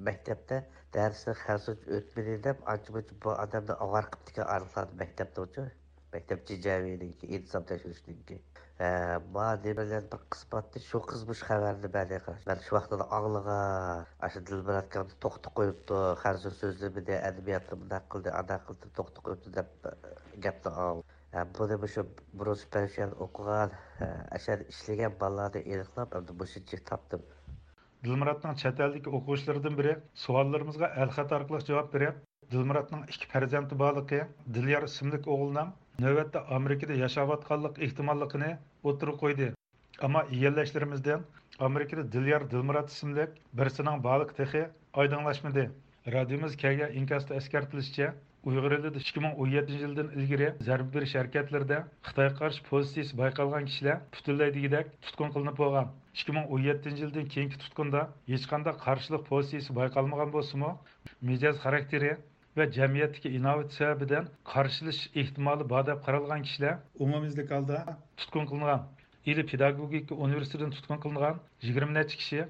مەكتەپتە دەرسنى خەنزۇچە ئۆتمىدى دەپ، ئانچە-مۇنچە بۇ ئادەمنى ئاۋارە قىپتىكەن ئارقىلاردا مەكتەپتىمۇچۇ. مەكتەپ جىجەۋىنىڭكى، ئىنتىزام تەكشۈرۈشنىڭكى. ھە، ما نېمىلەر بىر قىز بارتتى، شۇ قىز مۇشۇ خەۋەرنى بەردى، قاراش. مەن شۇ ۋاقىتتا ئاڭلىغان، ئاشۇ دىلمۇراتكامنى توختىتىپ قويۇپتۇ، خەنزۇ سۆزلىمىدى، ئەدەبىياتنى مۇنداق قىلدى، ئانداق قىلدى، توختىتىپ قويۇپتۇ دەپ گەپنى ئاڭلىدىم. ھە، بۇنى مۇشۇ بۇرۇن سۈپەرشىيەن ئوقۇغان، ھە، ئەشەدە ئىشلىگەن بالىلارنى ئېنىقلاپ، ئەمدى مۇشۇنچىلىك تاپتىم. دىلمۇراتنىڭ چەت ئەلدىكى ئوقۇغۇچىلىرىدىن بىرى سوئاللىرىمىزغا ئەلخەت ئارقىلىق جاۋاب بېرىپ، دىلمۇراتنىڭ ئىككى پەرزەنتى بارلىقى، دىليار ئىسىملىك ئوغۇلنىڭ نۆۋەتتە ئامېرىكىدا ياشاۋاتقانلىق ئېھتىماللىقىنى ئوتتۇرىغا قويدى. ئەمما يىگەنلەشلىرىمىزدىن ئامېرىكىدا دىليار دىلمۇرات ئىسىملىك بىرسىنىڭ بارلىقى تېخى ئايدىڭلاشمىدى. رادىيومىزغا كەلگەن ئىنكاستا ئەسكەرتىلىشىچە، ئۇيغۇر ئېلىدا ئىككى مىڭ ئون يەتتىنچى يىلدىن ئىلگىرى زەربە بېرىش ھەرىكەتلىرىدە خىتايغا قارشى پوزىتسىيىسى بايقالغان كىشىلەر پۈتۈنلەي دېگۈدەك تۇتقۇن قىلىنىپ بولغان. ئىككى مىڭ ئون يەتتىنچى يىلدىن كېيىنكى تۇتقۇندا ھېچقانداق قارشىلىق پوزىتسىيىسى بايقالمىغان بولسىمۇ، مىجەز خاراكتېرى ۋە جەمئىيەتتىكى ئىناۋىتى سەۋەبىدىن قارشىلىشىش ئېھتىمالى بار دەپ قارالغان كىشىلەر ئومۇميۈزلۈك ھالدا تۇتقۇن قىلىنغان. ئىلى پېداگوگىكا ئۇنىۋېرسىتېتىدىن تۇتقۇن قىلىنغان يىگىرمە نەچچە كىشى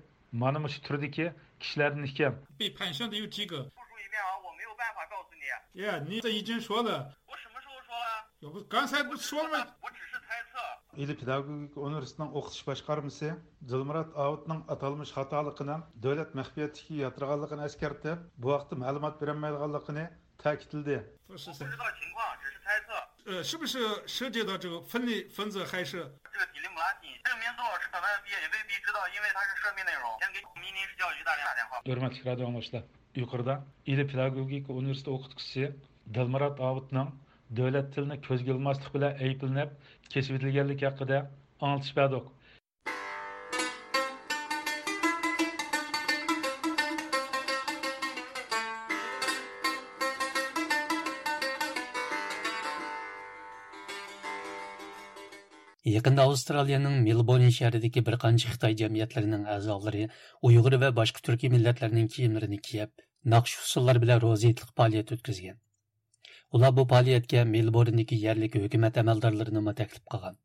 مانا مۇشۇ تۈردىكى كىشىلەردىن ئىكەن. 被盘旋的有几个。复述一遍啊，我没有办法告诉你。 耶，你这已经说了。 我什么时候说了？ 我刚才不是说了吗？ 我只是猜测。 ئىلى پېداگوگىكا ئۇنىۋېرسىتېتىنىڭ ئوقۇتۇش باشقارمىسى دىلمۇرات ئاۋۇتنىڭ ئاتالمىش خاتالىقىنىڭ دۆلەت مەخپىيەتلىكىگە ياتىدىغانلىقىنى ئەسكەرتىپ، بۇ ھەقتە مەلۇمات بېرەلمەيدىغانلىقىنى تەكىتلىدى. 我不知道情况，只是猜测。 呃，是不是涉及到这个分裂分子，还是？ 这个 Illuminati，这个名字我是本来也未必知道，因为它是涉密内容。先给明天是教育局大连打电话。 ھۆرمەتلىك رادىئو ئاڭلىغۇچىلار، يۇقىرىدا ئىلى پېداگوگىكا ئۇنىۋېرسىتېتى ئوقۇتقۇچىسى دىلمۇرات ئاۋۇتنىڭ دۆلەت تىلىنى كۆزگە ئىلماسلىق بىلەن ئەيىبلىنىپ، كېسىۋېتىلگەنلىكى ھەققىدە ئاڭلىتىش بەردۇق. يېقىندا ئاۋسترالىيەنىڭ مېلبورن شەھىرىدىكى بىر قانچە خىتاي جەمئىيەتلىرىنىڭ ئەزالىرى ئۇيغۇر ۋە باشقا تۈركىي مىللەتلەرنىڭ كىيىملىرىنى كىيىپ، ناخشا-ئۇسسۇللار بىلەن روزا ھېيتلىق پائالىيەت ئۆتكۈزگەن. ئۇلار بۇ پائالىيەتكە مېلبورندىكى يەرلىك ھۆكۈمەت ئەمەلدارلىرىنىمۇ تەكلىپ قىلغان.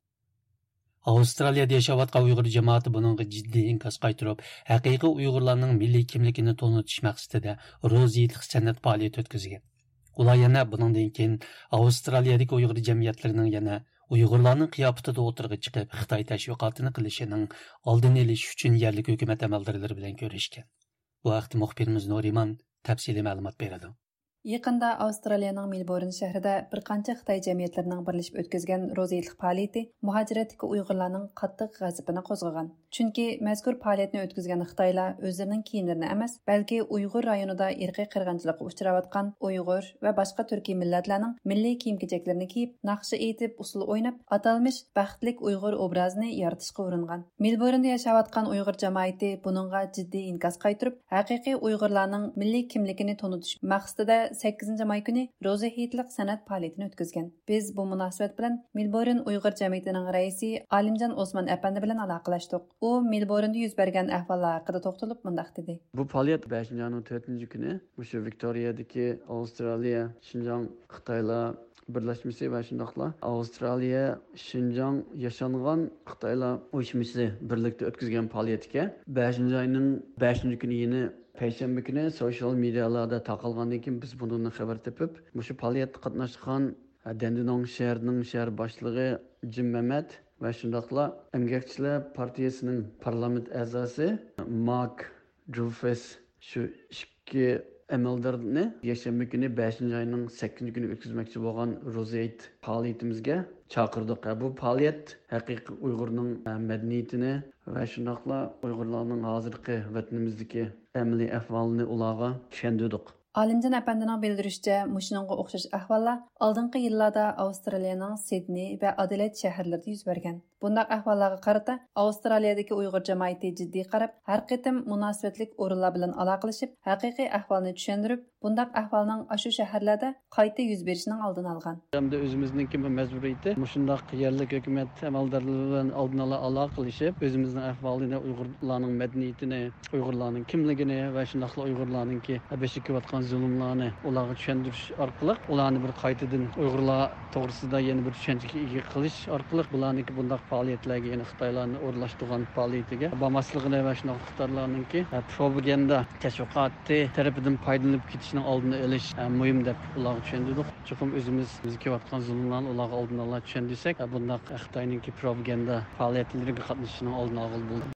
ئاۋسترالىيەدە ياشاۋاتقان ئۇيغۇر جامائىتى بۇنىڭغا جىددىي ئىنكاس قايتۇرۇپ، ھەقىقىي ئۇيغۇرلارنىڭ مىللىي كىملىكىنى تونۇتۇش مەقسىتىدە روزا ھېيتلىق سەنئەت پائالىيىتى ئۆتكۈزگەن. ئۇلار يەنە بۇنىڭدىن كېيىن ئاۋسترالىيەدىكى ئۇيغۇر جەمئىيەتلىرىنىڭ يەنە ئۇيغۇرلارنىڭ قىياپىتىدە ئوتتۇرىغا چىقىپ، خىتاي تەشۋىقاتىنى قىلىشىنىڭ ئالدىنى ئېلىش ئۈچۈن يەرلىك ھۆكۈمەت ئەمەلدارلىرى بىلەن كۆرۈشكەن. بۇ ھەقتە مۇخبىرىمىز نۇرىمان تەپسىلىي مەلۇمات بېرىدۇ. يېقىندا ئاۋسترالىيەنىڭ مېلبورن شەھىرىدە بىر قانچە خىتاي جەمئىيەتلىرىنىڭ بىرلىشىپ ئۆتكۈزگەن روزا ھېيتلىق پائالىيىتى مۇھاجىرەتتىكى ئۇيغۇرلارنىڭ قاتتىق غەزىپىنى قوزغىغان. چۈنكى مەزكۇر پائالىيەتنى ئۆتكۈزگەن خىتايلار ئۆزلىرىنىڭ كىيىملىرىنى ئەمەس، بەلكى ئۇيغۇر رايونىدا ئىرقىي قىرغىنچىلىققا ئۇچراۋاتقان ئۇيغۇر ۋە باشقا تۈركىي مىللەتلەرنىڭ مىللىي كىيىم-كېچەكلىرىنى كىيىپ، ناخشا ئېيتىپ، ئۇسسۇل ئويناپ، ئاتالمىش بەختلىك ئۇيغۇر ئوبرازىنى يارىتىشقا ئۇرۇنغان. مېلبورندا ياشاۋاتقان ئۇيغۇر جامائىتى بۇنىڭغا جىددىي ئىنكاس قايتۇرۇپ، ھەقىقىي ئۇيغۇرلارنىڭ مىللىي كىملىكىنى تونۇتۇش مەقسىتىدە سەككىزىنچى ماي كۈنى روزا ھېيتلىق سەنئەت پائالىيىتىنى ئۆتكۈزگەن. بىز بۇ مۇناسىۋەت بىلەن مېلبورن ئۇيغۇر جەمئىيىتىنىڭ رەئىسى ئالىمجان ئوسمان ئەپەندى بىلەن ئالاقىلەشتۇق. ئۇ مېلبورندا يۈز بەرگەن ئەھۋاللار ھەققىدە توختىلىپ مۇنداق دېدى. بۇ پائالىيەت بەشىنچى ئاينىڭ تۆتىنچى كۈنى مۇشۇ ۋىكتورىيەدىكى ئاۋسترالىيە شىنجاڭ خىتايلار بىرلەشمىسى ۋە شۇنداقلا ئاۋسترالىيە شىنجاڭ ياشانغان خىتايلار ئۇيۇشمىسى بىرلىكتە ئۆتكۈزگەن پائالىيەتكە بەشىنچى ئاينىڭ بەشىنچى كۈنى، يەنى پەيشەنبە كۈنى سوشيال مېدىيالاردا تارقالغاندىن كېيىن بىز بۇنىڭدىن خەۋەر تېپىپ، مۇشۇ پائالىيەتكە قاتناشقان دەندىنوڭ شەھىرىنىڭ شەھەر باشلىقى جىم مەمەت ۋە شۇنداقلا ئەمگەكچىلەر پارتىيىسىنىڭ پارلامېنت ئەزاسى مارك جۇفېس شۇ ئىككى ئەمەلدارنى يەكشەنبە كۈنى، بەشىنچى ئاينىڭ سەككىزىنچى كۈنى ئۆتكۈزمەكچى بولغان روزا ھېيت پائالىيىتىمىزگە چاقىردۇق. بۇ پائالىيەت ھەقىقىي ئۇيغۇرنىڭ مەدەنىيىتىنى ۋە شۇنداقلا ئۇيغۇرلارنىڭ ھازىرقى ۋەتىنىمىزدىكى ئەمەلىي ئەھۋالىنى ئۇلارغا چۈشەندۈردۇق. ئالىمجان ئەپەندىنىڭ بىلدۈرۈشىچە، مۇشۇنىڭغا ئوخشاش ئەھۋاللار ئالدىنقى يىللاردا ئاۋسترالىيەنىڭ سىدنېي ۋە ئادېلېيد شەھەرلىرىدە يۈز بەرگەن. بۇنداق ئەھۋاللارغا قارىتا ئاۋسترالىيەدىكى ئۇيغۇر جامائىتى جىددىي قاراپ، ھەر قېتىم مۇناسىۋەتلىك ئورۇنلار بىلەن ئالاقىلىشىپ، ھەقىقىي ئەھۋالنى چۈشەندۈرۈپ، بۇنداق ئەھۋالنىڭ ئاشۇ شەھەرلەردە قايتا يۈز بېرىشىنىڭ ئالدىنى ئالغان. ھەمدە ئۆزىمىزنىڭكى مەجبۇرىيىتى، مۇشۇنداق يەرلىك ھۆكۈمەت ئەمەلدارلىرى بىلەن ئالدىن ئالا ئالاقىلىشىپ، ئۆزىمىزنىڭ ئەھۋالىنى، ئۇيغۇرلارنىڭ مەدەنىيىتىنى، ئۇيغۇرلارنىڭ كىملىكىنى ۋە شۇنداقلا ئۇيغۇرلارنىڭكى بېشىغا كېلىۋاتقان زۇلۇملارنى ئۇلارغا چۈشەندۈرۈش ئارقىلىق، ئۇلارنى بىر قايتىدىن ئۇيغۇرلار توغرىسىدا يەنە بىر چۈشەنچىگە ئىگە قىلىش ئارقىلىق، بۇلارنىڭكى بۇنداق پائالىيەتلەرگە، يەنى خىتايلارنى ئورۇنلاشتۇرغان پائالىيىتىگە بارماسلىقىنى ۋە شۇنداق خىتايلارنىڭكى پروپاگاندا تەشۋىقاتى تەرىپىدىن پايدىلىنىپ كېتىشنىڭ ئالدىنى ئېلىش مۇھىم دەپ ئۇلارغا چۈشەندۈردۇق. چوقۇم ئۆزىمىز، بىزگە كېلىۋاتقان زۇلۇملارنى ئۇلارغا ئالدىن ئالا چۈشەندۈرسەك، بۇنداق خىتاينىڭكى پروپاگاندا پائالىيەتلىرىگە قاتنىشىشنىڭ ئالدىنى ئالغىلى بولىدۇ.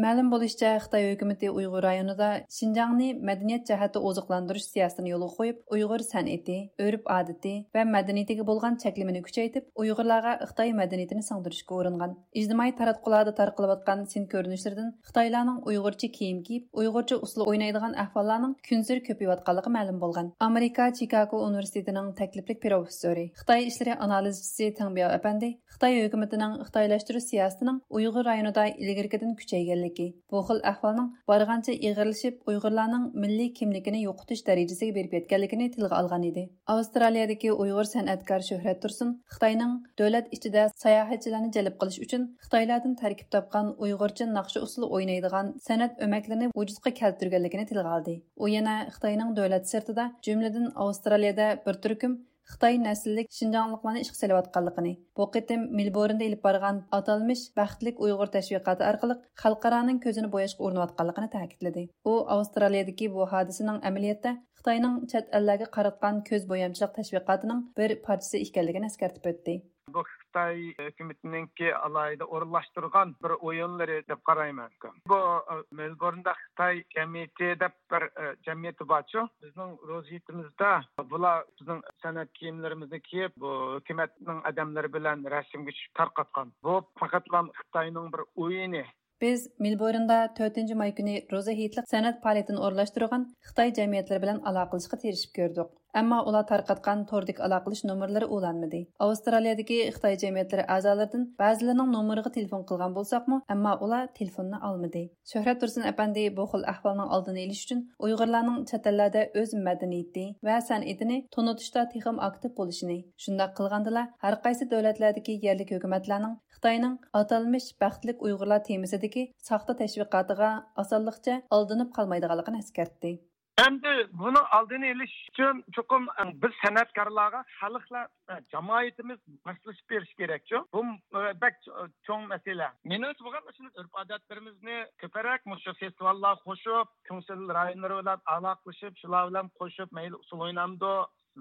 مەلۇم بولۇشىچە، خىتاي ھۆكۈمىتى ئۇيغۇر رايونىدا شىنجاڭنى مەدەنىيەت جەھەتتە ئوزۇقلاندۇرۇش سىياسىتىنى يولغا قويۇپ، ئۇيغۇر سەنئىتى، ئۆرپ-ئادىتى ۋە مەدەنىيىتىگە بولغان چەكلىمىنى كۈچەيتىپ، ئۇيغۇرلارغا خىتاي مەدەنىيىتىنى سىڭدۈرۈشكە ئۇرۇنغان. ئىجتىمائىي تاراتقۇلاردا تارقىلىۋاتقان سىن كۆرۈنۈشلىرىدىن خىتايلارنىڭ ئۇيغۇرچە كىيىم كىيىپ، ئۇيغۇرچە ئۇسسۇل ئوينايدىغان ئەھۋاللارنىڭ كۈنسېرى كۆپىيىۋاتقانلىقى مەلۇم بولغان. ئامېرىكا چىكاگو ئۇنىۋېرسىتېتىنىڭ تەكلىپلىك پروفېسسورى، خىتاي ئىشلىرى ئانالىزچىسى تېڭ بياۋ ئەپەندى خىتاي ھۆكۈمىتىنىڭ خىتايلاشتۇرۇش سىياسىتىنىڭ ئۇيغۇر رايونىدا ئىلگىرىكىدىن كۈچەيگەنلىكى، بۇ خىل ئەھۋالنىڭ بارغانچە ئېغىرلىشىپ، ئۇيغۇرلارنىڭ مىللىي كىملىكىنى يوقىتىش دەرىجىسىگە بېرىپ يەتكەنلىكىنى تىلغا ئالغان ئىدى. ئاۋسترالىيەدىكى ئۇيغۇر سەنئەتكار شۆھرەت تۇرسۇن خىتاينىڭ دۆلەت ئىچىدە ساياھەتچىلەرنى جەلپ قىلىش ئۈچۈن خىتايلاردىن تەركىب تاپقان ئۇيغۇرچە ناخشا ئۇسسۇلى ئوينايدىغان سەنئەت ئۆمەكلىرىنى ۋۇجۇدقا كەلتۈرگەنلىكىنى تىلغا ئالدى. ئۇ يەنە خىتاينىڭ دۆلەت سىرتىدا، جۈملىدىن ئاۋسترالىيەدە بىر تۈركۈم خىتاي نەسىللىك شىنجاڭلىقلارنى ئىشقا سېلىۋاتقانلىقىنى، بۇ قېتىم مېلبورندا ئېلىپ بارغان ئاتالمىش بەختلىك ئۇيغۇر تەشۋىقاتى ئارقىلىق خەلقئارانىڭ كۆزىنى بوياشقا ئۇرۇنۇۋاتقانلىقىنى تەكىتلىدى. ئۇ ئاۋسترالىيەدىكى بۇ ھادىسىنىڭ ئەمەلىيەتتە خىتاينىڭ چەت ئەللەرگە قاراتقان كۆز بويامچىلىق تەشۋىقاتىنىڭ بىر پارچىسى ئىكەنلىكىنى ئەسكەرتىپ ئۆتتى. بۇ خىتاي ھۆكۈمىتىنىڭكى ئالاھىدە ئورۇنلاشتۇرغان بىر ئويۇنلىرى دەپ قارايمەن. بۇ، ئە، مېلبورندا خىتاي جەمئىيىتى دەپ بىر، ئە، جەمئىيىتى بارچۇ. بىزنىڭ روزى ھېيتىمىزدا بۇلار بىزنىڭ سەنئەت كىيىملىرىمىزنى كىيىپ، بۇ ھۆكۈمەتنىڭ ئادەملىرى بىلەن رەسىمگە چۈشۈپ تارقاتقان. بۇ پەقەتلا خىتاينىڭ بىر ئويۇنى. بىز مېلبورندا تۆتىنچى ماي كۈنى روزا ھېيتلىق سەنئەت پائالىيىتىنى ئورۇنلاشتۇرغان خىتاي جەمئىيەتلىرى بىلەن ئالاقىلىشىشقا تىرىشىپ كۆردۇق. ئەمما ئۇلار تارقاتقان توردىكى ئالاقىلىشىش نومۇرلىرى ئۇلانمىدى. ئاۋسترالىيەدىكى خىتاي جەمئىيەتلىرى ئەزالىرىدىن بەزىلىرىنىڭ نومۇرىغا تېلېفون قىلغان بولساقمۇ، ئەمما ئۇلار تېلېفوننى ئالمىدى. شۆھرەت تۇرسۇن ئەپەندى بۇ خىل ئەھۋالنىڭ ئالدىنى ئېلىش ئۈچۈن ئۇيغۇرلارنىڭ چەت ئەللەردە ئۆز مەدەنىيىتى ۋە سەنئىتىنى تونۇتۇشتا تېخىمۇ ئاكتىپ بولۇشىنى، شۇنداق قىلغاندىلا ھەرقايسى دۆلەتلەردىكى يەرلىك ھۆكۈمەتلەرنىڭ خىتاينىڭ ئاتالمىش بەختلىك ئۇيغۇرلار تېمىسىدىكى ساختا تەشۋىقاتىغا ئاسانلىقچە ئالدىنىپ قالمايدىغانلىقىنى ئەسكەرتتى. ئەمدى بۇنىڭ ئالدىنى ئېلىش ئۈچۈن چوقۇم، ئە، بىز سەنئەتكارلارغا، خەلقلەر، ئە، جامائىتىمىز ماسلىشىپ بېرىشى كېرەكچۇ. بۇ، ئە، بەك، ئە، چوڭ مەسىلە. مېنىڭچە بولغان مۇشۇ ئۆرپ-ئادەتلىرىمىزنى كۆپرەك مۇشۇ فېستىۋاللارغا قوشۇپ، كۆڭۈل رايونلىرى بىلەن ئالاقىلىشىپ، شۇلار بىلەن قوشۇپ، مەيلى ئۇسسۇل ئوينامدۇ،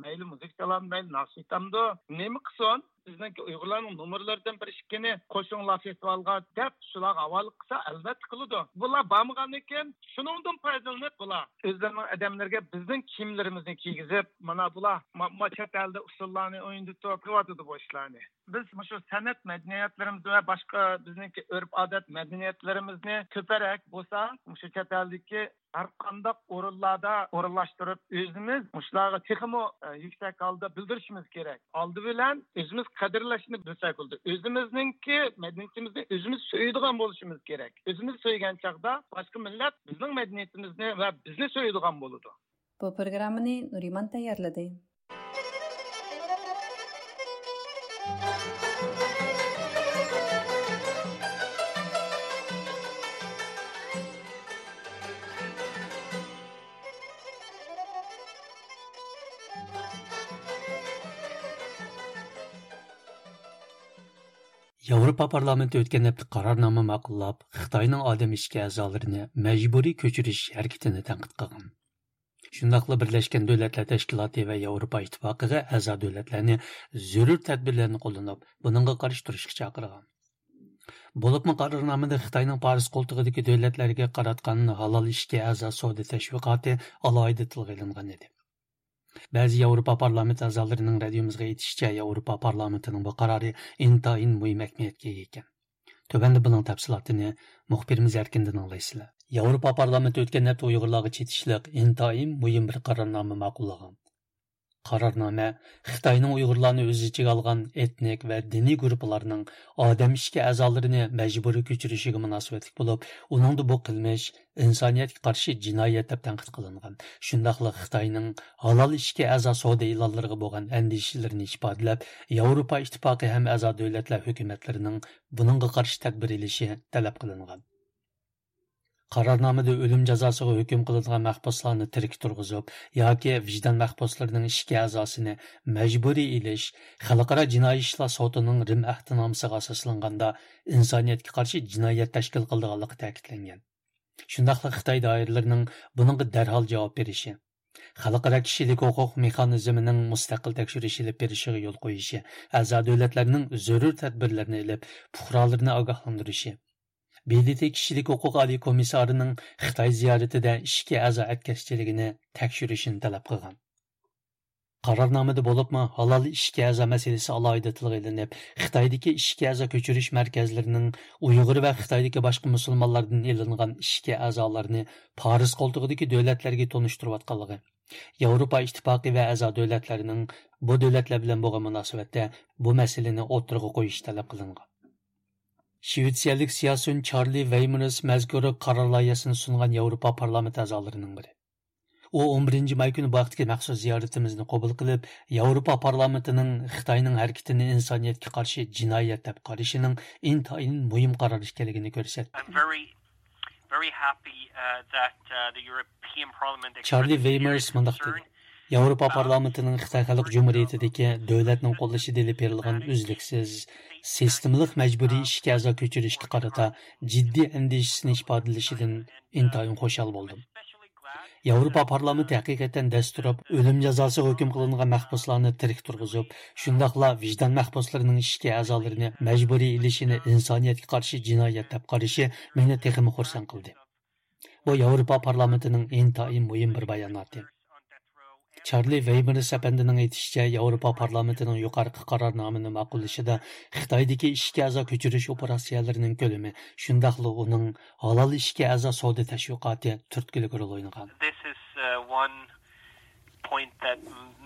مەيلى مۇزىكا چالامدۇ، مەيلى ناخشا ئېيتامدۇ، نېمە قىلسۇن؟ بىزنىڭكى ئۇيغۇرلارنىڭ نومۇرلىرىدىن بىر ئىككىنى قوشۇڭلار فېستىۋالغا دەپ شۇلارغا ھاۋالە قىلسا، ئەلۋەتتە قىلىدۇ. بۇلار بارمىغاندىن كېيىن شۇنىڭدىن پايدىلىنىپ بۇلار ئۆزلىرىنىڭ ئادەملىرىگە بىزنىڭ كىيىملىرىمىزنى كىيگۈزۈپ، مانا بۇلار ما-، ما چەت ئەلدە ئۇسسۇللارنى ئوينىتىپ قىلىۋاتىدۇ بۇ ئىشلارنى. بىز مۇشۇ سەنئەت مەدەنىيەتلىرىمىز ۋە باشقا بىزنىڭكى ئۆرپ-ئادەت مەدەنىيەتلىرىمىزنى كۆپرەك بولسا مۇشۇ چەت ئەلدىكى ھەر قانداق ئورۇنلاردا ئورۇنلاشتۇرۇپ، ئۆزىمىز مۇشۇلارغا تېخىمۇ، ئە، يۈكسەك ھالدا بىلدۈرۈشىمىز كېرەك. ئالدى بىلەن ئۆزىمىز قەدىرلەشنى بىلسەك بولىدۇ. ئۆزىمىزنىڭكى مەدەنىيىتىمىزنى ئۆزىمىز سۆيىدىغان بولۇشىمىز كېرەك. ئۆزىمىز سۆيگەن چاغدا باشقا مىللەت بىزنىڭ مەدەنىيىتىمىزنى ۋە بىزنى سۆيىدىغان بولىدۇ. بۇ پروگراممىنى نۇرىمان تەييارلىدى. ياۋروپا پارلامېنتى ئۆتكەن ھەپتە قارارنامە ماقۇللاپ، خىتاينىڭ ئادەم ئىچكى ئەزالىرىنى مەجبۇرىي كۆچۈرۈش ھەرىكىتىنى تەنقىد قىلغان. شۇنداقلا بىرلەشكەن دۆلەتلەر تەشكىلاتى ۋە ياۋروپا ئىتتىپاقىغا ئەزا دۆلەتلەرنى زۆرۈر تەدبىرلەرنى قوللىنىپ، بۇنىڭغا قارشى تۇرۇشقا چاقىرغان. بولۇپمۇ قارارنامىدا خىتاينىڭ پارس قولتۇقىدىكى دۆلەتلەرگە قاراتقان ھالال ئىشىككە ئەزا سودا تەشۋىقاتى ئالاھىدە تىلغا ئېلىنغان ئىدى. بەزى ياۋروپا پارلامېنت ئەزالىرىنىڭ رادىيومىزغا ئېيتىشىچە، ياۋروپا پارلامېنتىنىڭ بۇ قارارى ئىنتايىن مۇھىم ئەھمىيەتكە ئىگە ئىكەن. تۆۋەندە بۇنىڭ تەپسىلاتىنى مۇخبىرىمىز ئەركىندىن ئاڭلايسىلەر. ياۋروپا پارلامېنتى ئۆتكەن ھەپتە ئۇيغۇرلارغا چېتىشلىق ئىنتايىن مۇھىم بىر قارارنامە ماقۇللىغان. قارارنامە خىتاينىڭ ئۇيغۇرلارنى ئۆز ئىچىگە ئالغان ئېتنىك ۋە دىنىي گۇرۇپپىلارنىڭ ئادەم ئىچكى ئەزالىرىنى مەجبۇرىي كۆچۈرۈشىگە مۇناسىۋەتلىك بولۇپ، ئۇنىڭدا بۇ قىلمىش ئىنسانىيەتكە قارشى جىنايەت دەپ تەنقىد قىلىنغان. شۇنداقلا خىتاينىڭ ھالال ئىشىككە ئەزا سودا ئېلانلىرىغا بولغان ئەندىشىلىرىنى ئىپادىلەپ، ياۋروپا ئىتتىپاقى ھەم ئەزا دۆلەتلەر ھۆكۈمەتلىرىنىڭ بۇنىڭغا قارشى تەدبىر ئېلىشى تەلەپ قىلىنغان. قارارنامىدە ئۆلۈم جازاسىغا ھۆكۈم قىلىنغان مەھبۇسلارنى تىرىك تۇرغۇزۇپ ياكى ۋىجدان مەھبۇسلىرىنىڭ ئىچكى ئەزاسىنى مەجبۇرىي ئېلىش خەلقئارا جىنايى ئىشلار سوتىنىڭ رىم ئەھدىنامىسىغا ئاساسلانغاندا ئىنسانىيەتكە قارشى جىنايەت تەشكىل قىلىدىغانلىقى تەكىتلەنگەن. شۇنداقلا خىتاي دائىرىلىرىنىڭ بۇنىڭغا دەرھال جاۋاب بېرىشى، خەلقئارا كىشىلىك ھوقۇق مېخانىزمىنىڭ مۇستەقىل تەكشۈرۈش ئېلىپ بېرىشىغا يول قويۇشى، ئەزا دۆلەتلەرنىڭ زۆرۈر تەدبىرلەرنى ئېلىپ، پۇقرالىرىنى ئاگاھلاندۇرۇشى، ب د ت كىشىلىك ھوقۇق ئالىي كومىسسارىنىڭ خىتاي زىيارىتىدە ئىچكى ئەزا ئەتكەسچىلىكىنى تەكشۈرۈشىنى تەلەپ قىلغان. قارارنامىدا بولۇپمۇ ھالال ئىچكى ئەزا مەسىلىسى ئالاھىدە تىلغا ئېلىنىپ، خىتايدىكى ئىچكى ئەزا كۆچۈرۈش مەركەزلىرىنىڭ ئۇيغۇر ۋە خىتايدىكى باشقا مۇسۇلمانلاردىن ئېلىنغان ئىچكى ئەزالارنى پارس قولتۇقىدىكى دۆلەتلەرگە تونۇشتۇرۇۋاتقانلىقى، ياۋروپا ئىتتىپاقى ۋە ئەزا دۆلەتلەرنىڭ بۇ دۆلەتلەر بىلەن بولغان مۇناسىۋەتتە بۇ مەسىلىنى ئوتتۇرىغا قويۇشى تەلەپ قىلىنغان. شىۋېتسىيەلىك سىياسىيون چارلى ۋېيمېرس مەزكۇر قارار لايىھەسىنى سۇنغان ياۋروپا پارلامېنت ئەزالىرىنىڭ بىرى. ئۇ ئون بىرىنچى ماي كۈنى بۇ ھەقتىكى مەخسۇس زىيارىتىمىزنى قوبۇل قىلىپ، ياۋروپا پارلامېنتىنىڭ خىتاينىڭ ھەرىكىتىنى ئىنسانىيەتكە قارشى جىنايەت دەپ قارىشىنىڭ ئىنتايىن مۇھىم قارار ئىكەنلىكىنى كۆرسەتتى. I'm very, very happy, uh, that, uh, the European Parliament چارلى expressed its ۋېيمېرس مۇنداق concern دېدى. ياۋروپا پارلامېنتىنىڭ خىتاي خەلق جۇمھۇرىيىتىدىكى دۆلەتنىڭ قوللىشىدا ئېلىپ بېرىلغان ئۈزلۈكسىز، سىستېمىلىق مەجبۇرىي ئىشكە ئەزا كۆچۈرۈشكە قارىتا جىددىي ئەندىشىسىنى ئىپادىلىشىدىن ئىنتايىن خۇشال بولدۇم. ياۋروپا پارلامېنتى ھەقىقەتەن دەستۇرۇپ، ئۆلۈم جازاسىغا ھۆكۈم قىلىنغان مەھبۇسلارنى تىرىك تۇرغۇزۇپ، شۇنداقلا ۋىجدان مەھبۇسلىرىنىڭ ئىشكە ئەزالىرىنى مەجبۇرىي ئېلىشىنى ئىنسانىيەتكە قارشى جىنايەت دەپ قارىشى مېنى تېخىمۇ خۇرسەن قىلدى. بۇ ياۋروپا پارلامېنتىنىڭ ئىنتايىن مۇھىم بىر باياناتى. چارلى ۋېيمېرس ئەپەندىنىڭ ئېيتىشىچە، ياۋروپا پارلامېنتىنىڭ يۇقىرىقى قارارنامىنى ماقۇللىشىدا خىتايدىكى ئىشكە ئەزا كۆچۈرۈش ئوپېراتسىيەلىرىنىڭ كۆلىمى، شۇنداقلا ئۇنىڭ ھالال ئىشكە ئەزا سودا تەشۋىقاتى تۈرتكىلىك رول ئوينىغان. This is, uh, one point that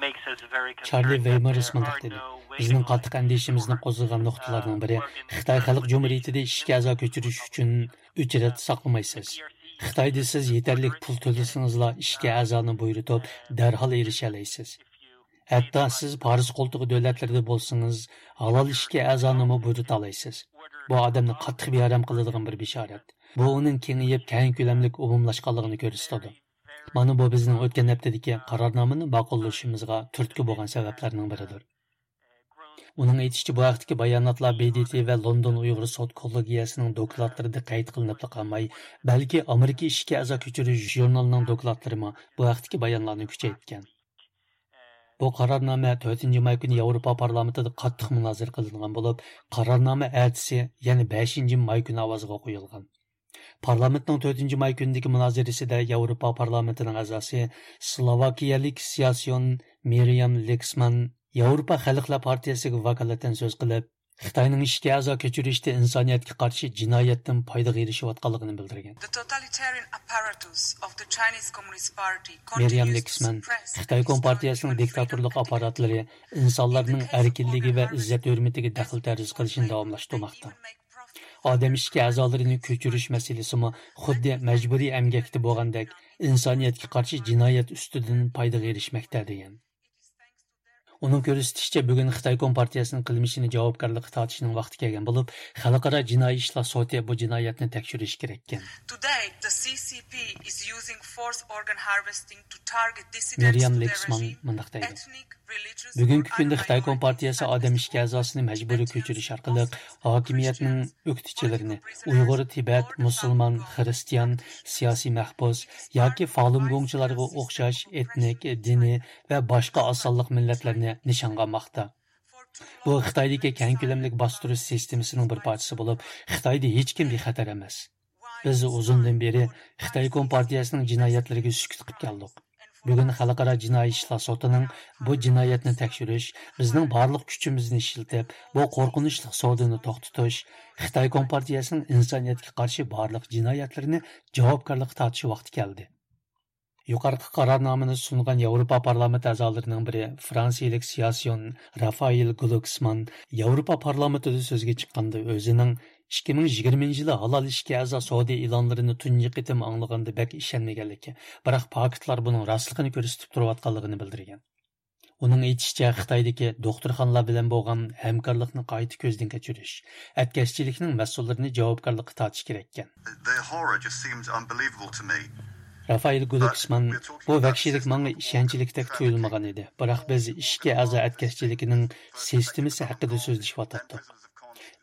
makes us very concerned. چارلى ۋېيمېرس مۇنداق دېدى: بىزنىڭ قاتتىق ئەندىشىمىزنى قوزغىغان نۇقتىلارنىڭ بىرى، خىتاي خەلق جۇمھۇرىيىتىدە ئىشكە ئەزا كۆچۈرۈش ئۈچۈن ئۆچرەت ساقلىمايسىز. خىتايدا سىز يېتەرلىك پۇل تۆلىسىڭىزلا ئىشكە ئەزانى بۇيرۇتۇپ، دەرھال ئېرىشەلەيسىز. ھەتتا سىز پارس قولتۇقى دۆلەتلىرىدە بولسىڭىز، ھالال ئىشكە ئەزانىمۇ بۇيرۇتالايسىز. بۇ ئادەمنى قاتتىق بىئارام قىلىدىغان بىر بېشارەت. بۇ ئۇنىڭ كېڭىيىپ، كەڭ كۆلەملىك ئومۇملاشقانلىقىنى كۆرسىتىدۇ. مانا بۇ بىزنىڭ ئۆتكەن ھەپتىدىكى قارارنامىنى ماقۇللىشىمىزغا تۈرتكە بولغان سەۋەبلەرنىڭ بىرىدۇر. ئۇنىڭ ئېيتىشىچە، بۇ ھەقتىكى باياناتلار ب د ت ۋە لوندون ئۇيغۇر سوت كوللېگىيەسىنىڭ دوكلاتلىرىدا قەيت قىلىنىپلا قالماي، بەلكى ئامېرىكا ئىشكە ئەزا كۆچۈرۈش ژۇرنىلىنىڭ دوكلاتلىرىمۇ بۇ ھەقتىكى بايانلارنى كۈچەيتكەن. بۇ قارارنامە تۆتىنچى ماي كۈنى ياۋروپا پارلامېنتىدا قاتتىق مۇنازىرە قىلىنغان بولۇپ، قارارنامە ئەتىسى، يەنى بەشىنچى ماي كۈنى ئاۋازغا قويۇلغان. پارلامېنتنىڭ تۆتىنچى ماي كۈنىدىكى مۇنازىرىسىدە ياۋروپا پارلامېنتىنىڭ ئەزاسى، سلوۋاكىيەلىك سىياسىيون مىريام لېكسمان ياۋروپا خەلقلەر پارتىيەسىگە ۋاكالىتەن سۆز قىلىپ، خىتاينىڭ ئىشكە ئەزا كۆچۈرۈشتە ئىنسانىيەتكە قارشى جىنايەتتىن پايدىغا ئېرىشىۋاتقانلىقىنى بىلدۈرگەن. The totalitarian apparatus of the Chinese Communist Party مىريام continues to لېكسمان، suppress خىتاي كومپارتىيەسىنىڭ دىكتاتورلۇق ئاپپاراتلىىرى ئىنسانلارنىڭ ئەركىنلىكى ۋە ئىززەت-ھۆرمىتىگە دەخلى-تەرۇز قىلىشنى داۋاملاشتۇرماقتا. ئادەم ئىشكە ئەزالىرىنى كۆچۈرۈش مەسىلىسىمۇ خۇددى مەجبۇرىي ئەمگەكتە بولغاندەك ئىنسانىيەتكە قارشى جىنايەت ئۈستىدىن پايدىغا ئېرىشمەكتە، دېگەن. ئۇنىڭ كۆرسىتىشىچە، بۈگۈن خىتاي كومپارتىيەسىنىڭ قىلمىشىنى جاۋابكارلىققا تارتىشنىڭ ۋاقتى كەلگەن بولۇپ، خەلقئارا جىنايى ئىشلار سوتى بۇ جىنايەتنى تەكشۈرۈشى كېرەككەن. Today, the C C P is using forced organ harvesting to target dissidents مىريام to their لېكسمان regime, مۇنداق دەيدۇ: ethnic، religious بۈگۈنكى or كۈندە خىتاي unrighteous كومپارتىيەسى ئادەم ئىشكە ئەزاسىنى مەجبۇرىي كۆچۈرۈش ئارقىلىق ھاكىمىيەتنىڭ ئۆكتىچىلىرىنى، ئۇيغۇر، تىبەت، مۇسۇلمان، خىرىستىيان، سىياسىي مەھبۇس ياكى فالۇنگوڭچىلارغا ئوخشاش ئېتنىك، دىنىي ۋە باشقا ئاز سانلىق مىللەتلەرنى نىشانغا ئالماقتا. بۇ خىتايدىكى كەڭ كۆلەملىك باستۇرۇش سىستېمىسىنىڭ بىر پارچىسى بولۇپ، خىتايدا ھېچكىم بىخەتەر ئەمەس. بىز ئۇزۇندىن بېرى خىتاي كومپارتىيەسىنىڭ جىنايەتلىرىگە سۈكۈت قىلىپ كەلدۇق. بۈگۈن خەلقئارا جىنايى ئىشلار سوتىنىڭ بۇ جىنايەتنى تەكشۈرۈش، بىزنىڭ بارلىق كۈچىمىزنى ئىشلىتىپ، بۇ قورقۇنچلۇق سودىنى توختىتىش، خىتاي كومپارتىيەسىنىڭ ئىنسانىيەتكە قارشى بارلىق جىنايەتلىرىنى جاۋابكارلىققا تارتىش ۋاقتى كەلدى. يۇقىرىقى قارارنامىنى سۇنغان ياۋروپا پارلامېنت ئەزالىرىنىڭ بىرى، فرانسىيىلىك سىياسىيون رافائېل گلوكسمان ياۋروپا پارلامېنتىدا سۆزگە چىققاندا، ئۆزىنىڭ ئىككى مىڭ يىگىرمىنچى يىلى ھالال ئىشكە ئەزا سودا ئېلانلىرىنى تۇنجى قېتىم ئاڭلىغاندا بەك ئىشەنمىگەنلىكى، بىراق پاكىتلار بۇنىڭ راستلىقىنى كۆرسىتىپ تۇرۇۋاتقانلىقىنى بىلدۈرگەن. ئۇنىڭ ئېيتىشىچە، خىتايدىكى دوختۇرخانىلار بىلەن بولغان ھەمكارلىقنى قايتا كۆزدىن كەچۈرۈش، ئەتكەسچىلىكنىڭ مەسئۇللىرىنى جاۋابكارلىققا تارتىش كېرەككەن. The horror just seemed unbelievable to me. رافائېل گلوكسمان، بۇ ۋەھشىيلىك ماڭا ئىشەنچلىكتەك تۇيۇلمىغان ئىدى، بىراق بىز ئىشكە ئەزا ئەتكەسچىلىكىنىڭ سىستېمىسى ھەققىدە سۆزلىشىۋاتاتتۇق.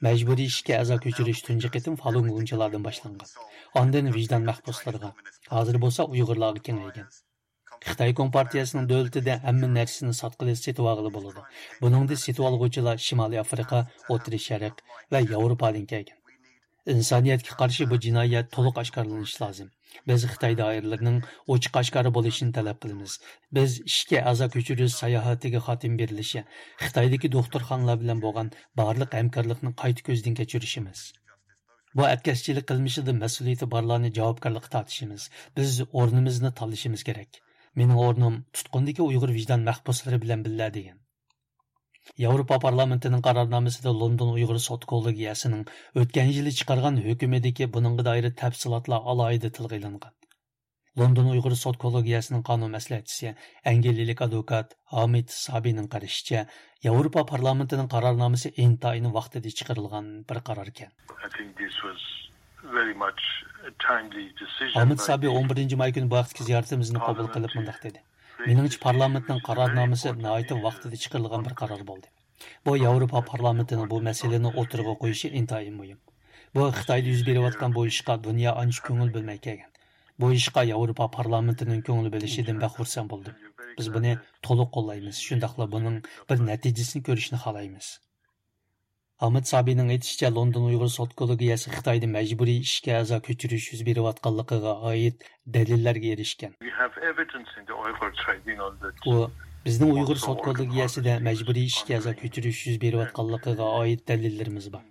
مەجبۇرىي ئىشكە ئەزا كۆچۈرۈش تۇنجى قېتىم فالۇنگوڭچىلاردىن باشلانغان، ئاندىن ۋىجدان مەھبۇسلىرىغا، ھازىر بولسا ئۇيغۇرلارغا كېڭەيگەن. خىتاي كومپارتىيەسىنىڭ دۆلىتىدە ھەممە نەرسىنى ساتقىلى، سېتىۋالغىلى بولىدۇ. بۇنىڭدا سېتىۋالغۇچىلار شىمالىي ئافرىقا، ئوتتۇرا شەرق ۋە ياۋروپادىن كەلگەن. ئىنسانىيەتكە قارشى بۇ جىنايەت تولۇق ئاشكارىلىنىشى لازىم. بىز خىتاي دائىرىلىرىنىڭ ئوچۇق ئاشكارا بولۇشىنى تەلەپ قىلىمىز. بىز ئىشكە ئەزا كۆچۈرۈش ساياھىتىگە خاتىمە بېرىلىشى، خىتايدىكى دوختۇرخانىلار بىلەن بولغان بارلىق ھەمكارلىقنى قايتا كۆزدىن كەچۈرۈشىمىز. بۇ ئەتكەسچىلىك قىلمىشىدا مەسئۇلىيىتى بارلارنى جاۋابكارلىققا تارتىشىمىز. بىز ئورنىمىزنى تاللىشىمىز كېرەك. مېنىڭ ئورنۇم تۇتقۇندىكى ئۇيغۇر ۋىجدان مەھبۇسلىرى بىلەن بىللە، دېگەن. ياۋروپا پارلامېنتىنىڭ قارارنامىسىدا لوندون ئۇيغۇر سوت كوللېگىيەسىنىڭ ئۆتكەن يىلى چىقارغان ھۆكۈمىدىكى بۇنىڭغا دائىر تەپسىلاتلار ئالاھىدە تىلغا ئېلىنغان. لوندون ئۇيغۇر سوت كوللېگىيەسىنىڭ قانۇن مەسلىھەتچىسى، ئەنگلىيەلىك ئادۋوكات ھامىد سابىنىڭ قارىشىچە، ياۋروپا پارلامېنتىنىڭ قارارنامىسى ئىنتايىن ۋاقتىدا چىقىرىلغان بىر قاراركەن. I think this was very much a timely decision. ھامىد سابى ئون بىرىنچى ماي كۈنى بۇ ھەقتىكى زىيارىتىمىزنى قوبۇل قىلىپ مۇنداق دېدى: مېنىڭچە، پارلامېنتنىڭ قارارنامىسى ناھايىتى ۋاقتىدا چىقىرىلغان بىر قارار بولدى. بۇ ياۋروپا پارلامېنتىنىڭ بۇ مەسىلىنى ئوتتۇرىغا قويۇشى ئىنتايىن مۇھىم. بۇ خىتايدا يۈز بېرىۋاتقان بۇ ئىشقا دۇنيا ئانچە كۆڭۈل بۆلمەي كەلگەن. بۇ ئىشقا ياۋروپا پارلامېنتىنىڭ كۆڭۈل بۆلۈشىدىن بەك خۇرسەن بولدۇم. بىز بۇنى تولۇق قوللايمىز، شۇنداقلا بۇنىڭ بىر نەتىجىسىنى كۆرۈشنى خالايمىز. ئامىت سابىنىڭ ئېيتىشىچە، لوندون ئۇيغۇر سوت كوللېگىيەسى خىتايدا مەجبۇرىي ئىشكە ئەزا كۆچۈرۈش يۈز بېرىۋاتقانلىقىغا ئائىت دەلىللەرگە ئېرىشكەن. We have evidence in the Uyghur tribunal that ئۇ، بىزنىڭ ئۇيغۇر سوت كوللېگىيەسىدە مەجبۇرىي ئىشكە ئەزا كۆچۈرۈش يۈز بېرىۋاتقانلىقىغا ئائىت دەلىللىرىمىز بار.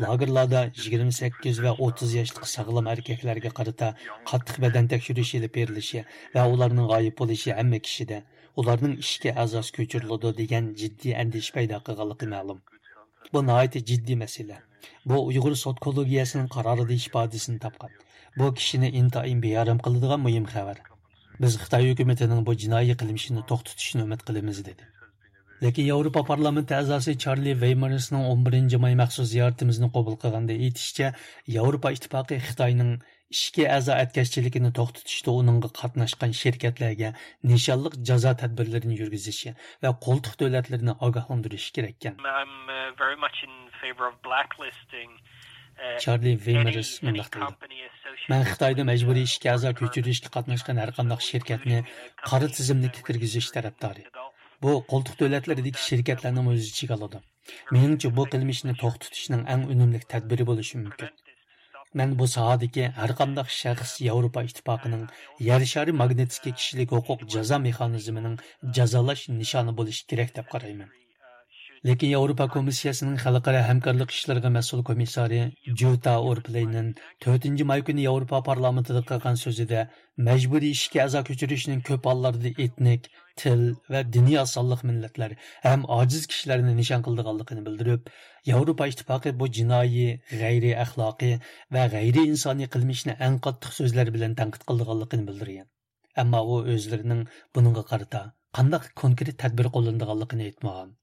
لاگېرلاردا يىگىرمە سەككىز ۋە ئوتتۇز ياشلىق ساغلام ئەركەكلەرگە قارىتا قاتتىق بەدەن تەكشۈرۈش ئېلىپ بېرىلىشى ۋە ئۇلارنىڭ غايىب بولۇشى ھەممە كىشىدە، ئۇلارنىڭ ئىشكە ئەزاسى كۆچۈرۈلىدۇ دېگەن جىددىي ئەندىشە پەيدا قىلغانلىقى مەلۇم. بۇ ناھايىتى جىددىي مەسىلە. بۇ ئۇيغۇر سوت كوللېگىيەسىنىڭ قارارىدا ئىپادىسىنى تاپقان. بۇ كىشىنى ئىنتايىن بىئارام قىلىدىغان مۇھىم خەۋەر. بىز خىتاي ھۆكۈمىتىنىڭ بۇ جىنايى قىلمىشىنى توختىتىشىنى ئۈمىد قىلىمىز، دېدى. لېكىن ياۋروپا پارلامېنتى ئەزاسى چارلى ۋېيمېرسنىڭ ئون بىرىنچى ماي مەخسۇس زىيارىتىمىزنى قوبۇل قىلغاندا ئېيتىشىچە، ياۋروپا ئىتتىپاقى خىتاينىڭ ئىشكە ئەزا ئەتكەسچىلىكىنى توختىتىشتا ئۇنىڭغا قاتناشقان شىركەتلەرگە نىشانلىق جازا تەدبىرلىرىنى يۈرگۈزۈشى ۋە قولتۇق دۆلەتلىرىنى ئاگاھلاندۇرۇشى كېرەككەن. I'm uh, very much in favor of blacklisting uh, چارلى ۋېيمېرس مۇنداق دەيدۇ: مەن خىتايدا مەجبۇرىي ئىشكە ئەزا كۆچۈرۈشكە قاتناشقان ھەرقانداق شىركەتنى قارا تىزىملىككە كىرگۈزۈش تەرەپدارى. بۇ قولتۇق دۆلەتلىرىدىكى شىركەتلەرنىمۇ ئۆز ئىچىگە ئالىدۇ. مېنىڭچە، بۇ قىلمىشنى توختىتىشنىڭ ئەڭ ئۈنۈملۈك تەدبىرى بولۇشى مۇمكىن. مەن بۇ ساھەدىكى ھەرقانداق شەخس ياۋروپا ئىتتىپاقىنىڭ يەر شارى ماگنىتسكىي كىشىلىك ھوقۇق جازا مېخانىزمىنىڭ جازالاش نىشانى بولۇشى كېرەك دەپ قارايمەن. لېكىن ياۋروپا كومىسسىيەسىنىڭ خەلقئارا ھەمكارلىق ئىشلىرىغا مەسئۇل كومىسسارى جۇتا ئورپلەينېن تۆتىنچى ماي كۈنى ياۋروپا پارلامېنتىدا قىلغان سۆزىدە، مەجبۇرىي ئىشكە ئەزا كۆچۈرۈشنىڭ كۆپ ھاللاردا ئېتنىك، تىل ۋە دىنىي ئاز سانلىق مىللەتلەر ھەم ئاجىز كىشىلەرنى نىشان قىلىدىغانلىقىنى بىلدۈرۈپ، ياۋروپا ئىتتىپاقى بۇ جىنايى، غەيرىي ئەخلاقىي ۋە غەيرىي ئىنسانىي قىلمىشنى ئەڭ قاتتىق سۆزلەر بىلەن تەنقىد قىلىدىغانلىقىنى بىلدۈرگەن. ئەمما ئۇ ئۆزلىرىنىڭ بۇنىڭغا قارىتا قانداق كونكرېت تەدبىر قوللىنىدىغانلىقىنى ئېيتمىغان.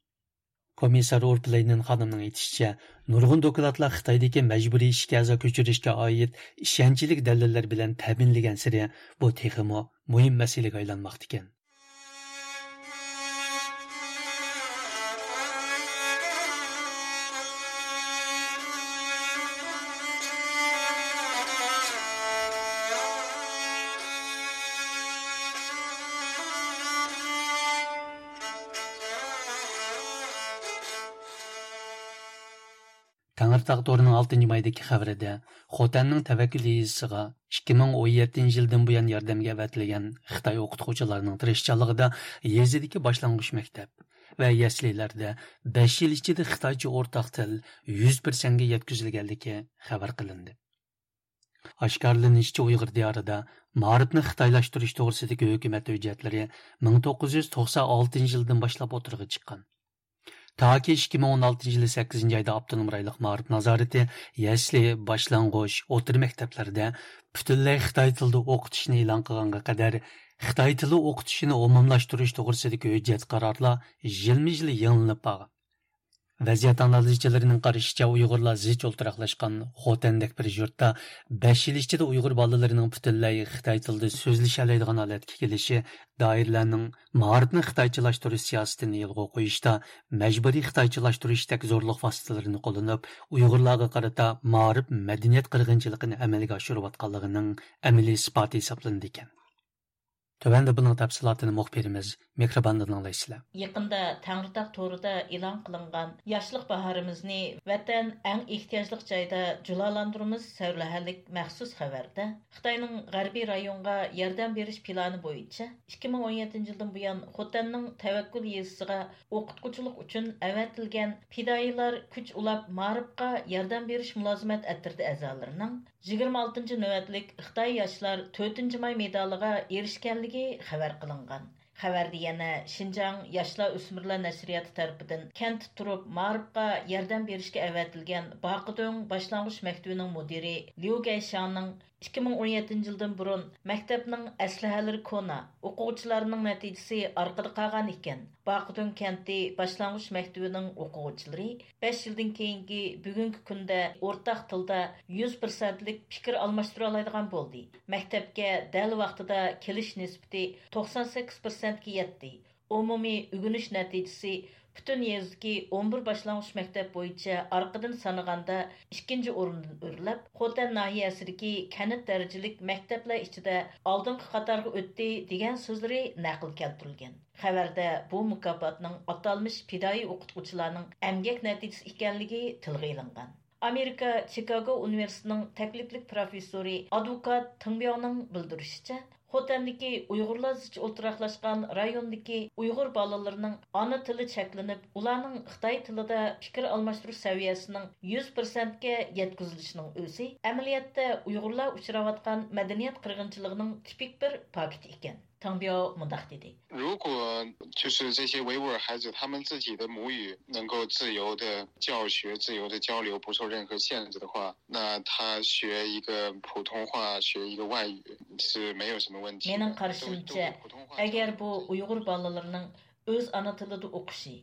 كومىسسار ئورپلەينېن خانىمنىڭ ئېيتىشىچە، نۇرغۇن دوكلاتلار خىتايدىكى مەجبۇرىي ئىشكە ئەزا كۆچۈرۈشكە ئائىت ئىشەنچلىك دەلىللەر بىلەن تەمىنلىگەنسېرى، بۇ تېخىمۇ مۇھىم مەسىلىگە ئايلانماقتىكەن. تەڭرىتاغ تورىنىڭ ئالتىنچى مايدىكى خەۋىرىدە، خوتەننىڭ تەۋەككۈل يېزىسىغا ئىككى مىڭ ئون يەتتىنچى يىلدىن بۇيان ياردەمگە ئەۋەتىلگەن خىتاي ئوقۇتقۇچىلارنىڭ تىرىشچانلىقىدا يېزىدىكى باشلانغۇچ مەكتەپ ۋە يەسلىلەردە بەش يىل ئىچىدە خىتايچە ئورتاق تىل يۈز پىرسەنتكە يەتكۈزۈلگەنلىكى خەۋەر قىلىندى. ئاشكارىلىنىشىچە، ئۇيغۇر دىيارىدا مائارىپنى خىتايلاشتۇرۇش توغرىسىدىكى ھۆكۈمەت ھۆججەتلىرى مىڭ توققۇز يۈز توقسان ئالتىنچى يىلدىن باشلاپ ئوتتۇرىغا چىققان. تاكى ئىككى مىڭ ئون ئالتىنچى يىلى سەككىزىنچى ئايدا ئاپتونوم رايونلۇق مائارىپ نازارىتى يەسلى، باشلانغۇچ، ئوتتۇرا مەكتەپلەردە پۈتۈنلەي خىتاي تىلىدا ئوقۇتۇشنى ئېلان قىلغانغا قەدەر، خىتاي تىلى ئوقۇتۇشىنى ئومۇملاشتۇرۇش توغرىسىدىكى ھۆججەت قارارلار يىلمۇ يىل يېڭىلىنىپ بارغان. ۋەزىيەت ئانالىزچىلىرىنىڭ قارىشىچە، ئۇيغۇرلار زىچ ئولتۇراقلاشقان خوتەندەك بىر يۇرتتا بەش يىل ئىچىدە ئۇيغۇر بالىلىرىنىڭ پۈتۈنلەي خىتاي تىلىدا سۆزلىشەلەيدىغان ھالەتكە كېلىشى دائىرىلەرنىڭ مائارىپنى خىتايچىلاشتۇرۇش سىياسىتىنى يولغا قويۇشتا مەجبۇرىي خىتايچىلاشتۇرۇشتەك زورلۇق ۋاسىتىلىرىنى قوللىنىپ، ئۇيغۇرلارغا قارىتا مائارىپ، مەدەنىيەت قىرغىنچىلىقىنى ئەمەلگە ئاشۇرۇۋاتقانلىقىنىڭ ئەمەلىي ئىسپاتى ھېسابلىنىدىكەن. تۆۋەندە بۇنىڭ تەپسىلاتىنى مۇخبىرىمىز مېھرىباندىن ئاڭلايسىلەر. يېقىندا تەڭرىتاغ تورىدا ئېلان قىلىنغان ياشلىق باھارىمىزنى ۋەتەن ئەڭ ئېھتىياجلىق جايدا جۇلالاندۇرىمىز سەۋلىھەلىك مەخسۇس خەۋەردە، خىتاينىڭ غەربىي رايونغا ياردەم بېرىش پىلانى بويىچە، ئىككى مىڭ ئون يەتتىنچى يىلدىن بۇيان خوتەننىڭ تەۋەككۈل يېزىسىغا ئوقۇتقۇچىلىق ئۈچۈن ئەۋەتىلگەن پىدائىيلار كۈچ ئۇلاپ مائارىپقا ياردەم بېرىش مۇلازىمەت ئەترىتى ئەزالىرىنىڭ يىگىرمە ئالتىنچى نۆۋەتلىك خىتاي ياشلار تۆتىنچى ماي مېدالىغا ئېرىشكەنلىكى خەۋەر قىلىنغان. خەۋەردە يەنە شىنجاڭ ياشلار ئۆسمۈرلەر نەشرىياتى تەرىپىدىن كەنتتە تۇرۇپ مائارىپقا ياردەم بېرىشكە ئەۋەتىلگەن باقىدۆڭ باشلانغۇچ مەكتىۋىنىڭ مۇدىرى ليۇ گەيشياڭنىڭ ئىككى مىڭ ئون يەتتىنچى يىلدىن بۇرۇن مەكتەپنىڭ ئەسلىھەلىرى كونا، ئوقۇغۇچىلارنىڭ نەتىجىسى ئارقىدا قالغان ئىكەن. باقىدۈڭ كەنتى باشلانغۇچ مەكتىۋىنىڭ ئوقۇغۇچىلىرى بەش يىلدىن كېيىنكى بۈگۈنكى كۈندە ئورتاق تىلدا يۈز پىرسەنتلىك پىكىر ئالماشتۇرالايدىغان بولدى. مەكتەپكە دەل ۋاقتىدا كېلىش نىسبىتى توقسان سەككىز پىرسەنتكە يەتتى. ئومۇمىي ئۆگىنىش نەتىجىسى پۈتۈن يېزىدىكى ئون بىر باشلانغۇچ مەكتەپ بويىچە ئارقىدىن سانىغاندا ئىككىنچى ئورۇندىن ئۆرلەپ، خوتەن ناھىيەسىدىكى كەنت دەرىجىلىك مەكتەپلەر ئىچىدە ئالدىنقى قاتارغا ئۆتتى، دېگەن سۆزلىرى نەقىل كەلتۈرۈلگەن. خەۋەردە بۇ مۇكاپاتنىڭ ئاتالمىش پىدائىي ئوقۇتقۇچىلارنىڭ ئەمگەك نەتىجىسى ئىكەنلىكى تىلغا ئېلىنغان. ئامېرىكا چىكاگو ئۇنىۋېرسىتېتىنىڭ تەكلىپلىك پروفېسسورى ئادۋوكات تېڭ بياۋنىڭ بىلدۈرۈشىچە، خوتەندىكى ئۇيغۇرلار زىچ ئولتۇراقلاشقان رايوندىكى ئۇيغۇر بالىلىرىنىڭ ئانا تىلى چەكلىنىپ، ئۇلارنىڭ خىتاي تىلىدا پىكىر ئالماشتۇرۇش سەۋىيەسىنىڭ يۈز پىرسەنتكە يەتكۈزۈلۈشىنىڭ ئۆزى ئەمەلىيەتتە ئۇيغۇرلار ئۇچراۋاتقان مەدەنىيەت قىرغىنچىلىقىنىڭ تىپىك بىر پاكىتى ئىكەن. تاڭبياۋ مۇنداق دېدى. 如果就是这些维吾尔孩子，他们自己的母语能够自由的教学、自由的交流，不受任何限制的话，那他学一个普通话，学一个外语是没有什么问题的。 مېنىڭ قارىشىمچە، ئەگەر بۇ ئۇيغۇر بالىلىرىنىڭ ئۆز ئانا تىلىدا ئوقۇشى،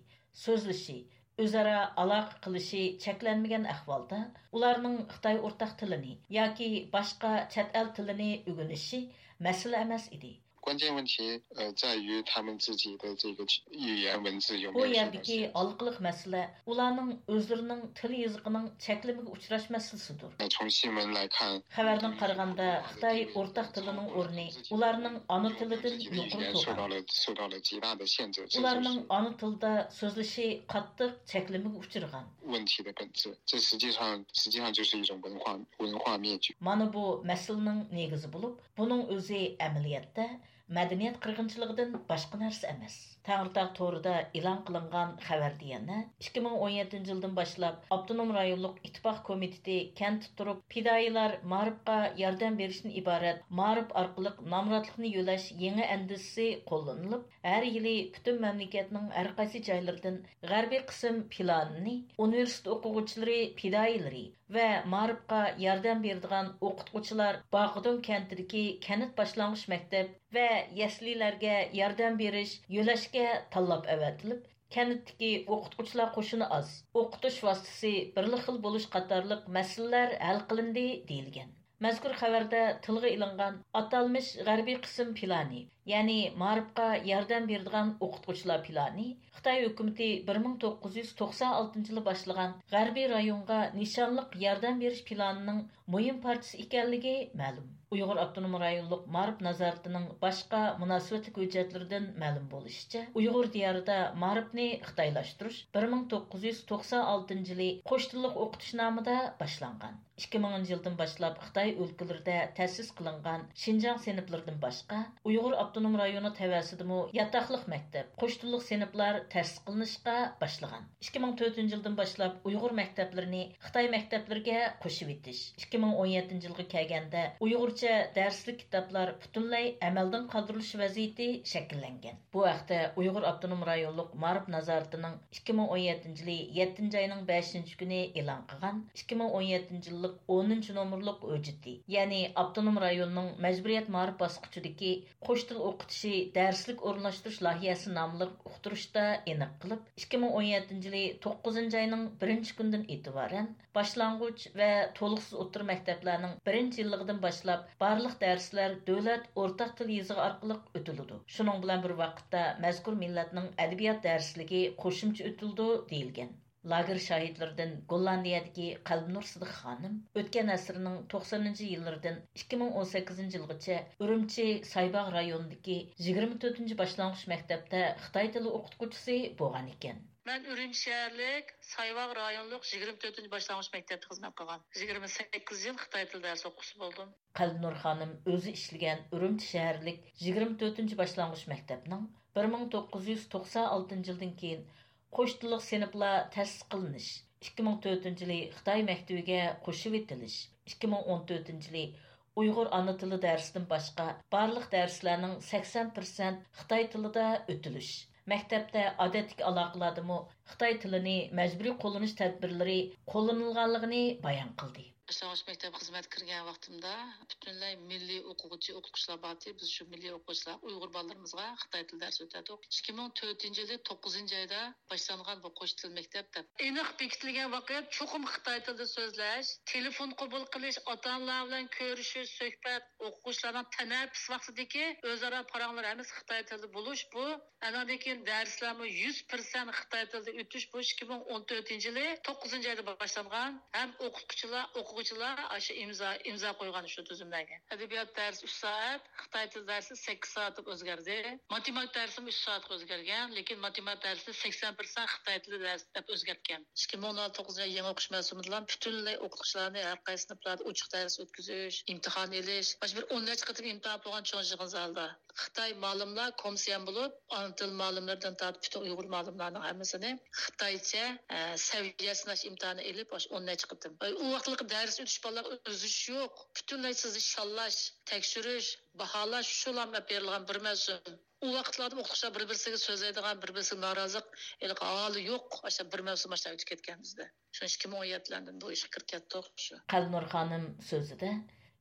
سۆزلىشى، ئۆزئارا ئالاقە قىلىشى چەكلەنمىگەن ئەھۋالدا، ئۇلارنىڭ خىتاي ئورتاق تىلىنى ياكى باشقا چەت ئەل تىلىنى ئۆگىنىشى مەسىلە ئەمەس ئىدى. 关键问题，呃，在于他们自己的这个语言文字有 بۇ 没有受到 يەردىكى 限制。 ھالقىلىق مەسىلە ئۇلارنىڭ ئۆزلىرىنىڭ تىل يېزىقىنىڭ چەكلىمىگە ئۇچراش مەسىلىسىدۇر. 那从新闻来看， خەۋەردىن قارىغاندا، خىتاي ئورتاق تىلىنىڭ ئورنى ئۇلارنىڭ ئانا تىلىدىن يۇقىرى 受到 تۇرغان. 了受到了极大的限制，这就 ئۇلارنىڭ 是 ئانا تىلىدا سۆزلىشى قاتتىق چەكلىمىگە ئۇچرىغان. 问题的本质。这实际上实际上就是一种文化文化灭绝。 مانا بۇ مەسىلىنىڭ نېگىزى بولۇپ، بۇنىڭ ئۆزى ئەمەلىيەتتە مەدەنىيەت قىرغىنچىلىقىدىن باشقا نەرسە ئەمەس. تەڭرىتاغ تورىدا ئېلان قىلىنغان خەۋەردە يەنە، ئىككى مىڭ ئون يەتتىنچى يىلدىن باشلاپ ئاپتونوم رايونلۇق ئىتتىپاق كومىتېتى كەنتتە تۇرۇپ، پىدائىيلار مائارىپقا ياردەم بېرىشتىن ئىبارەت مائارىپ ئارقىلىق نامراتلىقنى يۆلەش يېڭى ئەندىزىسى قوللىنىلىپ، ھەر يىلى پۈتۈن مەملىكەتنىڭ ھەر قايسى جايلىرىدىن غەربىي قىسىم پىلانىنى ئۇنىۋېرسىتېت ئوقۇغۇچىلىرى، پىدائىيلىرى ۋە مائارىپقا ياردەم بېرىدىغان ئوقۇتقۇچىلار باقىدۇڭ كەنتىدىكى كەنت باشلانغۇچ مەكتەپ ۋە يەسلىلەرگە ياردەم بېرىش، يۆلەشكە تاللاپ ئەۋەتىلىپ، كەنتتىكى ئوقۇتقۇچىلار قوشۇنى ئاز، ئوقۇتۇش ۋاسىتىسى بىرلا خىل بولۇش قاتارلىق مەسىلىلەر ھەل قىلىندى، دېيىلگەن. مەزكۇر خەۋەردە تىلغا ئېلىنغان ئاتالمىش غەربىي قىسىم پىلانى، يەنى مائارىپقا ياردەم بېرىدىغان ئوقۇتقۇچىلار پىلانى خىتاي ھۆكۈمىتى بىر مىڭ توققۇز يۈز توقسان ئالتىنچى يىلى باشلىغان غەربىي رايونغا نىشانلىق ياردەم بېرىش پىلانىنىڭ مۇھىم پارچىسى ئىكەنلىكى مەلۇم. ئۇيغۇر ئاپتونوم رايونلۇق مائارىپ نازارىتىنىڭ باشقا مۇناسىۋەتلىك ھۆججەتلىرىدىن مەلۇم بولۇشىچە، ئۇيغۇر دىيارىدا مائارىپنى خىتايلاشتۇرۇش بىر مىڭ توققۇز يۈز توقسان ئالتىنچى يىلى قوش تىللىق ئوقۇتۇش نامىدا باشلانغان. ئىككى مىڭىنچى يىلدىن باشلاپ خىتاي ئۆلكىلىرىدە تەسىس قىلىنغان شىنجاڭ سىنىپلىرىدىن باشقا، ئۇيغۇر ئاپتونوم رايونى تەۋەسىدىمۇ ياتاقلىق مەكتەپ، قوش تىللىق سىنىپلار تەسىس قىلىنىشقا باشلىغان. ئىككى مىڭ تۆتىنچى يىلدىن باشلاپ ئۇيغۇر مەكتەپلىرىنى خىتاي مەكتەپلىرىگە قوشۇۋېتىش، ئىككى مىڭ ئون يەتتىنچى يىلغا كەلگەندە ئۇيغۇرچە دەرسلىك كىتابلار پۈتۈنلەي ئەمەلدىن قالدۇرۇلۇش ۋەزىيىتى شەكىللەنگەن. بۇ ھەقتە ئۇيغۇر ئاپتونوم رايونلۇق مائارىپ نازارىتىنىڭ ئىككى مىڭ ئون يەتتىنچى يىلى يەتتىنچى ئاينىڭ بەشىنچى كۈنى ئېلان قىلغان ئىككى مىڭ ئون يەتتىنچى يىللىق ئونىنچى نومۇرلۇق ھۆججىتى، يەنى ئاپتونوم رايوننىڭ مەجبۇرىيەت مائارىپ باسقۇچىدىكى قوش تىل ئوقۇتۇشى دەرسلىك ئورۇنلاشتۇرۇش لايىھەسى ناملىق ئۇقتۇرۇشتا ئېنىق قىلىپ، ئىككى مىڭ ئون يەتتىنچى يىلى توققۇزىنچى ئاينىڭ بىرىنچى كۈنىدىن ئېتىبارەن باشلانغۇچ ۋە تولۇقسىز ئوتتۇرا مەكتەپلەرنىڭ بىرىنچى يىللىقىدىن باشلاپ بارلىق دەرسلەر دۆلەت ئورتاق تىل يېزىقى ئارقىلىق ئۆتۈلىدۇ. شۇنىڭ بىلەن بىر ۋاقىتتا مەزكۇر مىللەتنىڭ ئەدەبىيات دەرسلىكى قوشۇمچە ئۆتۈلىدۇ، دېيىلگەن. لاگېر شاھىتلىرىدىن گوللاندىيەدىكى قەلبىنۇر سىدىق خانىم ئۆتكەن ئەسىرنىڭ توقسىنىنچى يىللىرىدىن ئىككى مىڭ ئون سەككىزىنچى يىلغىچە ئۈرۈمچى سايباغ رايونىدىكى يىگىرمە تۆتىنچى باشلانغۇچ مەكتەپتە خىتاي تىلى ئوقۇتقۇچىسى بولغان ئىكەن. مەن ئۈرۈمچى شەھەرلىك سايباغ رايونلۇق يىگىرمە تۆتىنچى باشلانغۇچ مەكتەپتە خىزمەت قىلغان. يىگىرمە سەككىز يىل خىتاي تىل دەرس ئوقۇغۇچىسى بولدۇم. قەلبىنۇر خانىم ئۆزى ئىشلىگەن ئۈرۈمچى شەھەرلىك يىگىرمە تۆتىنچى باشلانغۇچ مەكتەپنىڭ بىر مىڭ توققۇز يۈز توقسان ئالتىنچى يىلدىن كېيىن قوش تىللىق سىنىپلار تەسىس قىلىنىش، ئىككى مىڭ تۆتىنچى يىلى خىتاي مەكتىۋىگە قوشۇۋېتىلىش، ئىككى مىڭ ئون تۆتىنچى يىلى ئۇيغۇر ئانا تىلى دەرسىدىن باشقا بارلىق دەرسلەرنىڭ سەكسەن پىرسەنت خىتاي تىلىدا ئۆتۈلۈش، مەكتەپتە ئادەتتىكى ئالاقىلاردىمۇ خىتاي تىلىنى مەجبۇرىي قوللىنىش تەدبىرلىرى قوللىنىلغانلىقىنى بايان قىلدى. باشلانغۇچ مەكتەپ خىزمەتكە كىرگەن ۋاقتىمدا پۈتۈنلەي مىللىي ئوقۇغۇچى، ئوقۇتقۇچىلار بارتى. بىز شۇ مىللىي ئوقۇغۇچىلار ئۇيغۇر بالىلىرىمىزغا خىتاي تىل دەرسى ئۆتەتتۇق. ئىككى مىڭ تۆتىنچى يىلى توققۇزىنچى ئايدا باشلانغان بۇ قوش تىل مەكتەپ دەپ. ئېنىق بېكىتىلگەن ۋاقىت چوقۇم خىتاي تىلىدا سۆزلەش، تېلېفون قوبۇل قىلىش، ئاتا-ئانىلار بىلەن كۆرۈشۈش، سۆھبەت، ئوقۇغۇچىلارنىڭ تەنەپپۇس ۋاقتىدىكى ئۆزئارا پاراڭلار ھەممىسى خىتاي تىلىدا بولۇش بۇ. ئانىڭدىن كېيىن دەرسلەرمۇ يۈز پىرسەنت خىتاي تىلىدا ئۆتۈش، بۇ ئىككى مىڭ ئون تۆتىنچى يىلى توققۇزىنچى ئايدا باشلانغان. ھەم ئوقۇتقۇچىلار، ئوقۇغۇچىلار ئاشۇ ئىمزا، ئىمزا قويغان شۇ تۈزۈملەرگە. ئەدەبىيات دەرسى ئۈچ سائەت، خىتاي تىلى دەرسى سەككىز سائەت دەپ ئۆزگەردى. ماتېماتىكا دەرسىمۇ ئۈچ سائەتكە ئۆزگەرگەن، لېكىن ماتېماتىكا دەرسىنى سەكسەن پىرسەنت خىتاي تىلى دەرسى دەپ ئۆزگەرتكەن. ئىككى مىڭ ئون توققۇزىنچى يىل يېڭى ئوقۇش مەۋسۇمىدىلا پۈتۈنلەي ئوقۇتقۇچىلارنى ھەر قايسى سىنىپلاردا ئوچۇق دەرس ئۆتكۈزۈش، ئىمتىھان ئېلىش، مانا شۇ بىر ئون نەچچە قېتىم ئىمتىھان بولغان چوڭ يىغىن زالىدا. خىتاي مالىملار كومسىيان بولۇپ، ئانا تىل مالىملىرىدىن تارتىپ پۈتۈن ئۇيغۇر مالىملارنىڭ ھەممىسىنى خىتايچە، ئە، سەۋىيە سىناش ئىمتىھانى ئېلىپ، ئاشۇ ئون نەچچە قېتىم. ئۇ ۋاقىتلىقى دەرس ئۆتۈش بالىلارغا ئۆزلىشىش يوق. پۈتۈنلەي سىزنى شاللاش، تەكشۈرۈش، باھالاش، شۇلا ئېلىپ بېرىلغان بىر مەۋسۇم. ئۇ ۋاقىتلاردا ئوقۇتقۇچىلار بىر-بىرسىگە سۆزلەيدىغان، بىر-بىرسىگە نارازىلىق، ھېلىقى ھالى يوق. ئاشۇ بىر مەۋسۇم ئاشۇنداق ئۆتۈپ كەتكەن بىزدە. شۇ ئىككى مىڭ ئون يەتتىلەردىن بۇ ئىشقا كىرىپ كەتتۇق شۇ. قەلبىنۇر خانىم سۆزىدە،